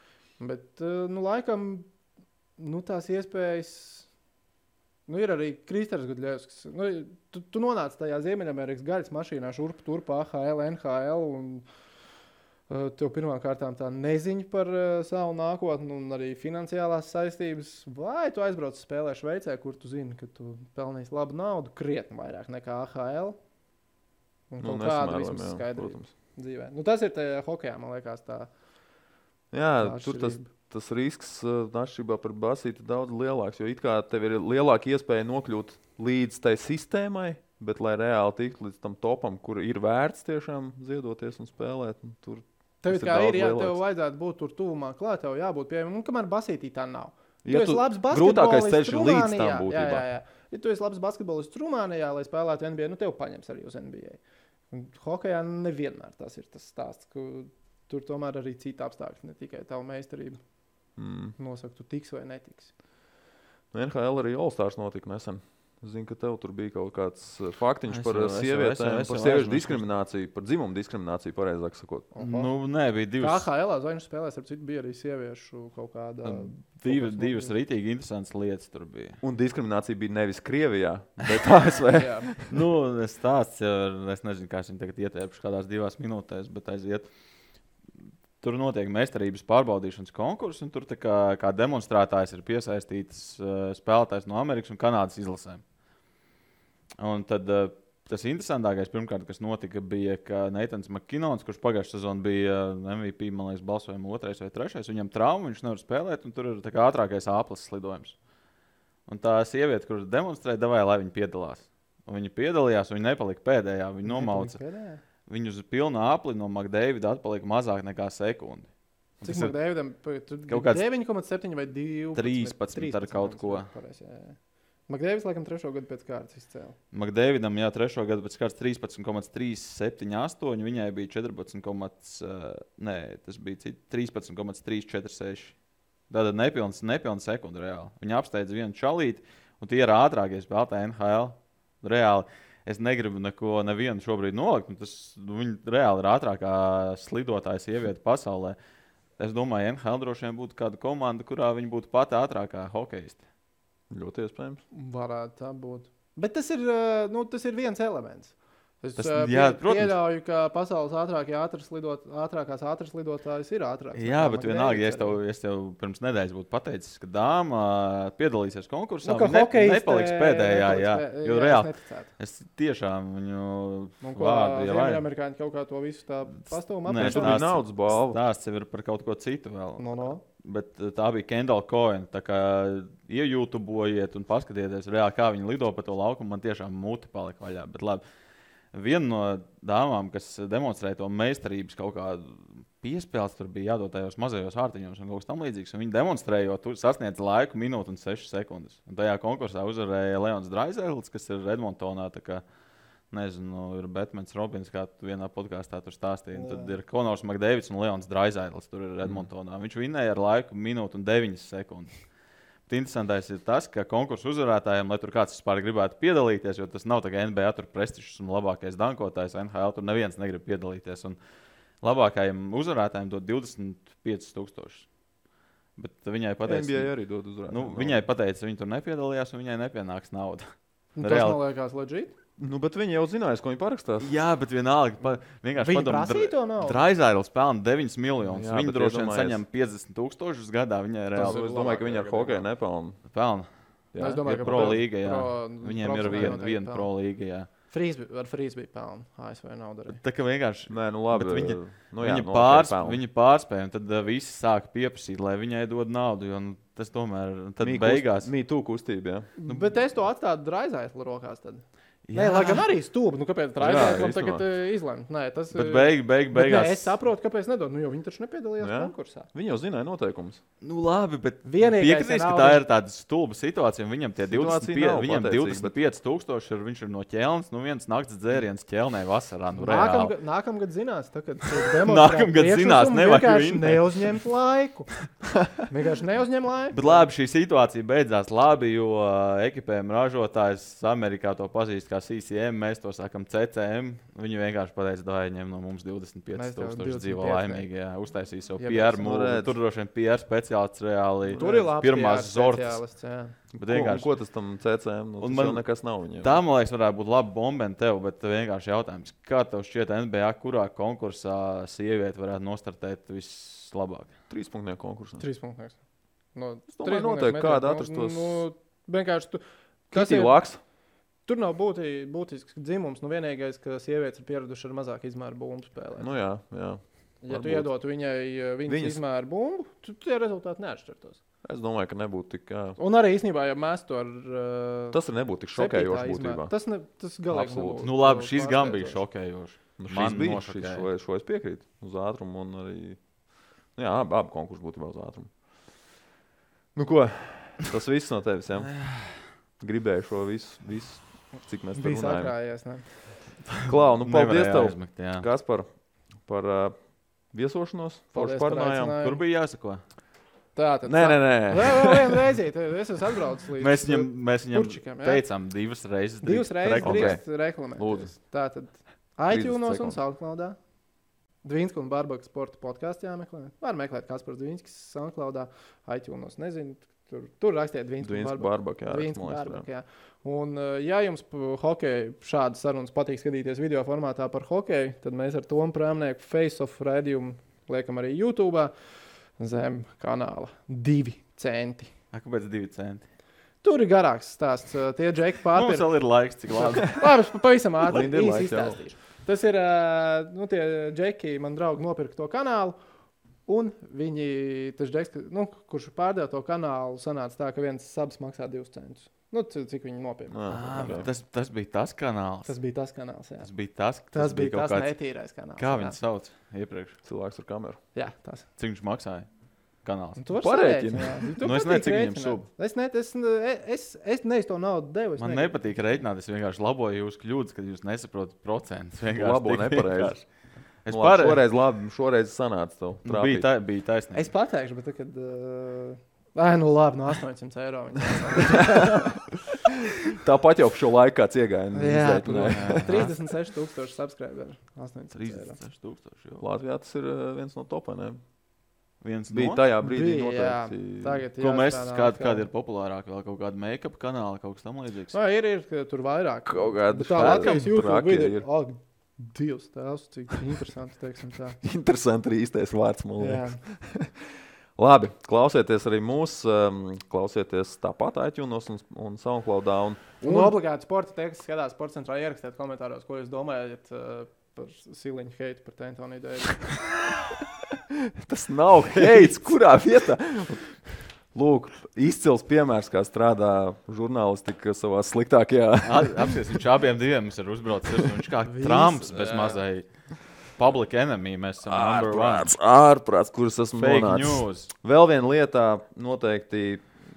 Bet, laikam, tās iespējas... ir arī Kristers Gudļevskis. Tu nonāc tajā Ziemeļamerikas gaļas mašīnā šurp turp AHL, NHL un tev pirmām kārtām tā neziņa par savu nākotni un arī finansiālās saistības. Vai tu aizbrauc spēlē Šveicē, kur tu zini, ka tu pelnīsi labu naudu, krietni vairāk nekā AHL. Un kaut kādu vismaz skaidrību dzīvē. Tas ir tajā hokejā, man liekas, tā. Jā, tur tas risks atšķirībā par basīti daudz lielāks, jo it kā tev ir lielāka iespēja nokļūt līdz tai sistēmai, bet lai reāli tiktu līdz tam topam, kur ir vērts tiešām ziedoties un spēlēt, tur tev kā ir, tev vajadzētu būt tur tuvumā klāt, tev jābūt pieejamam, kamēr basītī tā nav. Ja tu esi labs grūtākais ceļš ir līdz tam būtībā. Jā. Ja tu esi labs basketbolists Rumānijā, lai spēlētu NBA, tev paņems arī uz NBA. Un hokejā nevienmēr tas ir tas stāsts, ka tur tomēr arī cita apstākļi, ne tikai tavu meistarību. Nosaka, tu tiks vai netiks. NHL arī All-Stars notika nesen. Es zinu, ka tev tur bija kaut kāds faktiņš par sievietēm, par sieviešu diskrimināciju, par dzimumu diskrimināciju, pareizāk sakot. Nē, bija divas. KHL zvaigžņu spēlēs, ar citu bija arī sieviešu kaut kāda... Divas rītīgi interesantas lietas tur bija. Un diskriminācija bija nevis Krievijā, bet ASV. Es stāsts, es nezinu, kā es viņu tagad ietērpuši kādās 2 minūtēs, bet aiziet. Tur notiek meistarības pārbaudīšanas konkurss, un tur kā demonstrētājs ir piesaistīts spēlētājs no Amerikas un Kanādas izlasēm. Un tad tas interesantākais, pirmkārt, kas notika, bija, ka Neitans Makinons, kurš pagājušajā sezonā bija MVP, man liekas, balsojuma 2. vai 3. Viņam trauma, viņš nevar spēlēt, un tur ir ātrākais āplas slidojums. Un tā sieviete, kur demonstrēja, devāja, lai viņa piedalās. Un viņa piedalījās, un viņa nepalika pēdējā, viņa nomauca. Viņu uz pilnu apli no McDavida atpalika mazāk nekā sekundi. Cik McDavidam? Kaut kāds 9,7 vai 12? 13 ar kaut ko. McDavids laikam 3. gadu pēc kārtas izcēla. McDavidam, 3. gadu pēc kārtas 13,378, viņai bija 13,346. Tātad nepilns sekundi reāli. Viņa apsteidza vienu čalīti, un tie ir ātrākie spēlētāji NHL. Reāli. Es negribu nevienu šobrīd nolikt. Viņa reāli ir ātrākā slidotāja sieviete pasaulē. Es domāju, NHL droši vien būtu kāda komanda, kurā viņa būtu pati ātrākā hokeiste. Ļoti iespējams. Varētu tā būt. Bet tas ir viens elements. Es pieļauju, ka pasaules ātrākās ātras lidotājs ir ātrāks. Jā, bet vienalga, ja es tev pirms nedēļas būtu pateicis, ka dāma piedalīsies konkursā, viņa nepaliks pēdējā. Jo reāli, es tiešām viņu vārdu jau vairāk. Amerikāņi kaut kā to visu tā pastāvum apmēr. Tur bija naudas balva. Stāsts jau ir par kaut ko citu vēl. No. Bet tā bija Kendall Coyne. Tā kā iejūtubojiet un paskatieties reāli, kā viņi lido pa to laukumu, man tiešām muti palika vaļā. Bet labi. viena no dāmām, kas demonstrēja to meistarības kaut kādu piespēles, tur bija jādod tajos mazajos ārtiņos un kaut kas tam līdzīgs. Viņi demonstrējot, tur sasniedz laiku minūti un 6 sekundes. Un tajā konkursā uzvarēja Leons Draisaitis, kas ir Edmontonā. Nezinu, ir Batmans Robins, kā tu vienā podkāstā tur stāstīji. Tad ir Konors Makdēvids un Leons Draisaitis, tur ir Edmontonā. Viņš vinēja ar laiku minūti un 9 sekundes. Bet interesantais ir tas, ka konkursu uzvarētājiem, lai tur kāds vispār gribētu piedalīties, jo tas nav tā kā NBA tur prestižs un labākais dankotājs, NHL tur neviens negrib piedalīties. Un labākajiem uzvarētājiem dod 25,000. Bet viņai pateica, NBA arī dod uzvarētājiem. Viņai pateica, viņa tur nepiedalījās un viņai nepienāks nauda. Tas man liekas legit. Bet viņi jau zinājās, ko viņi parakstās. Jā, bet vienalga. Viņi prasīja to naudu. Draisaitis pelna 9 miljonus. Jā, Viņa droši vien saņem 50,000 gadā. Viņai ir reāli. Es domāju, ka viņi ar hokeju nepelna. Pelna. Jā, es domāju, ir ka pro līga, jā. Viņiem ir viena pro līga, jā. Ar Frīsbī pelna. ASV nauda arī. Tā kā vienkārši. Nē, nu labi. Viņa pārspēja, un tad visi sāka pieprasīt, lai viņai dod naudu, jo tas tomēr beigās. Mītū kustība, jā. Bet es to atstātu Draisaitis rokās tad. Nē, lai gan arī stūbi. Kāpēc Draisaitis tagad izlemt? Nē, tas bet beigās. Nē, es saprotu, kāpēc nedod. Jo viņi taču nepiedalījās konkursā. Viņi jau zināja noteikumus. Nu labi, bet piekritīs, ka tā ir tāda stulba situācija. Viņam tie 25,000 ir, viņš ir no Ķelnes. Viens nakts dzēriens Ķelnē vasarā. Nākamgad zinās, kad nākamgad zinās, vienkārši neuzņemt laiku. Vienkārši neuzņem laiku. Bet labi, šī situācija beidzās labi, jo ekipējuma ražotājs Amerikā to pazīst kā CCM, mēs to sākam CCM. Viņi vienkārši pateica, ka viņiem no mums 25,000 dzīvo laimīgi. Uztaisīja savu PR mūlu. Tur droši vien PR speciālists reāli. Tur ir labs pirmās zortas. Ko tas tam CCM? Tas jau nekas nav viņiem. Tā, man liekas, varētu būt laba bombena tev, bet vienkārši jautājums. Kā tev šķiet NBA, kurā konkursā sieviete varētu nostartēt vislabāk? 3-punktu konkursā. 3-punktu. Es domāju, noteikti kāda atrastos. Vienkārši Kitī Laks. Tur nav būtisks dzimums. Vienīgais, ka sievietes ir pieradušas ar mazāku izmēru bumbu spēlēt. Nu jā. Ja tu iedotu viņas izmēru bumbu, tad tie rezultāti neatšķirtos. Es domāju, ka nebūtu tik. Un arī īstenībā, ja mēs to ar. Tas nebūtu tik šokējoši būtībā. Tas galīgi nebūtu. Nu labi, šis gan bija šokējoši. Šis bija, šo es piekrītu. Uz ātrumu un arī. Jā, abi konkursi būtībā uz ātrumu. Nu ko, tas viss no tevis, jā? Gribēju šo visu. Cik mēs tur runājam. Klau, nu paldies tev, Kaspar, par viesošanos. Kur bija jāsako? Tātad. Nē. Vēl vienu reizīt. Es esmu atbraucis līdz Mēs viņam teicām 2 reizes. 2 reizes drīkst reklamēt. Tātad iTunes un SoundCloudā. Dvīnska un Barbaka sporta podkāstu jāmeklē. Var meklēt Kaspars Dvīnskas SoundCloudā. iTunes nezinu. Tur rakstiet Dvīnska un Barbaka. Un, ja jums hokeja šādas sarunas patīk skatīties video formātā par hokeju, tad mēs ar Tomu Prēmnieku Face-Off raidījumu liekam arī YouTube zem kanāla 2 centi. Kāpēc 2 centi? Tur ir garāks stāsts. Tie džeki pārpirka. Mums vēl ir laiks, cik labi. Labi, pavisam ātri īsi izstāstīšu. Tas ir, tie džeki, man draugi, nopirka to kanālu. Un viņi, tas džeks, kurš pārdeva to kanālu, sanāca tā, ka viens subs maksā 2 centus. Cik viņi nopirka. Tas bija tas kanāls. Tas bija tas kanāls, jā. Tas bija tas netīrais kanāls. Kā viņu sauc iepriekš? Cilvēks ar kameru. Jā, tas. Cik viņš maksāja? Kanāls. Tu vari sarēķināt. Es nezinu, cik viņam sub. Es neesmu to naudu devu. Man nepatīk reiķināt. Es vienkārši laboju jūsu kļūdas, kad jūs nesaprotat procentus. Labo nepareizi. Šoreiz sanāca tev. Bija taisnība. Es pateikšu, bet kad... labi, no 800 eiro. Tāpat jau šo laiku kāds iegāja. Jā, 36,000 subscriberi. 36,000. Latvijā tas ir viens no topiem. Bija tajā brīdī noteikti. Ko mēs, kādi ir populārāki, vēl kaut kāda make-up kanāla, kaut kas tam līdzīgs? Ir tur vairāk. Kaut kāda tā Latvijas YouTube video ir. Dievs, tēvs, cik interesanti, teiksim tā. Interesanti ir īstais vārds, man liekas. Labi, klausieties arī mūs, klausieties tāpat iTunes un SoundCloudā. Un obligāti sporta, tie, kas skatās Sports centrā, ierakstiet komentāros, ko jūs domājat par Siliņu heitu par Antoniju Deivisu. Tas nav heits, kurā vietā? Lūk, izcils piemērs, kā strādā žurnālistika savā sliktākajā. Apsies, viņš abiem diviem ir uzbraucis. Viņš kā Trumps bez mazai public enemy. Mēs esam number one. Ārprāts, kuras esmu Fake nonācis. news. Vēl viena lietā noteikti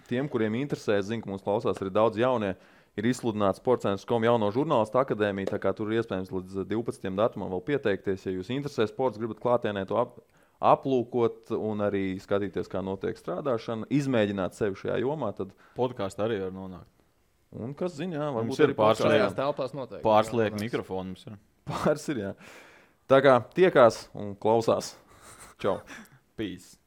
tiem, kuriem interesē, zinu, ka mums klausās arī daudz jaunie, ir izsludināts Sports.com jauno žurnālistu akadēmiju, tā kā tur ir iespējams līdz 12. datumam vēl pieteikties. Ja jūs interesē sports, gribat klātienē to aplūkot un arī skatīties, kā notiek strādāšana, izmēģināt sevi šajā jomā, tad Podkāstā arī var nonākt. un kas zina, Mums varbūt ir arī Šajās telpās noteikti. Pārsliek mikrofonu mums ir. pāris ir, jā. Tā kā tiekās un klausās. Čau! Peace.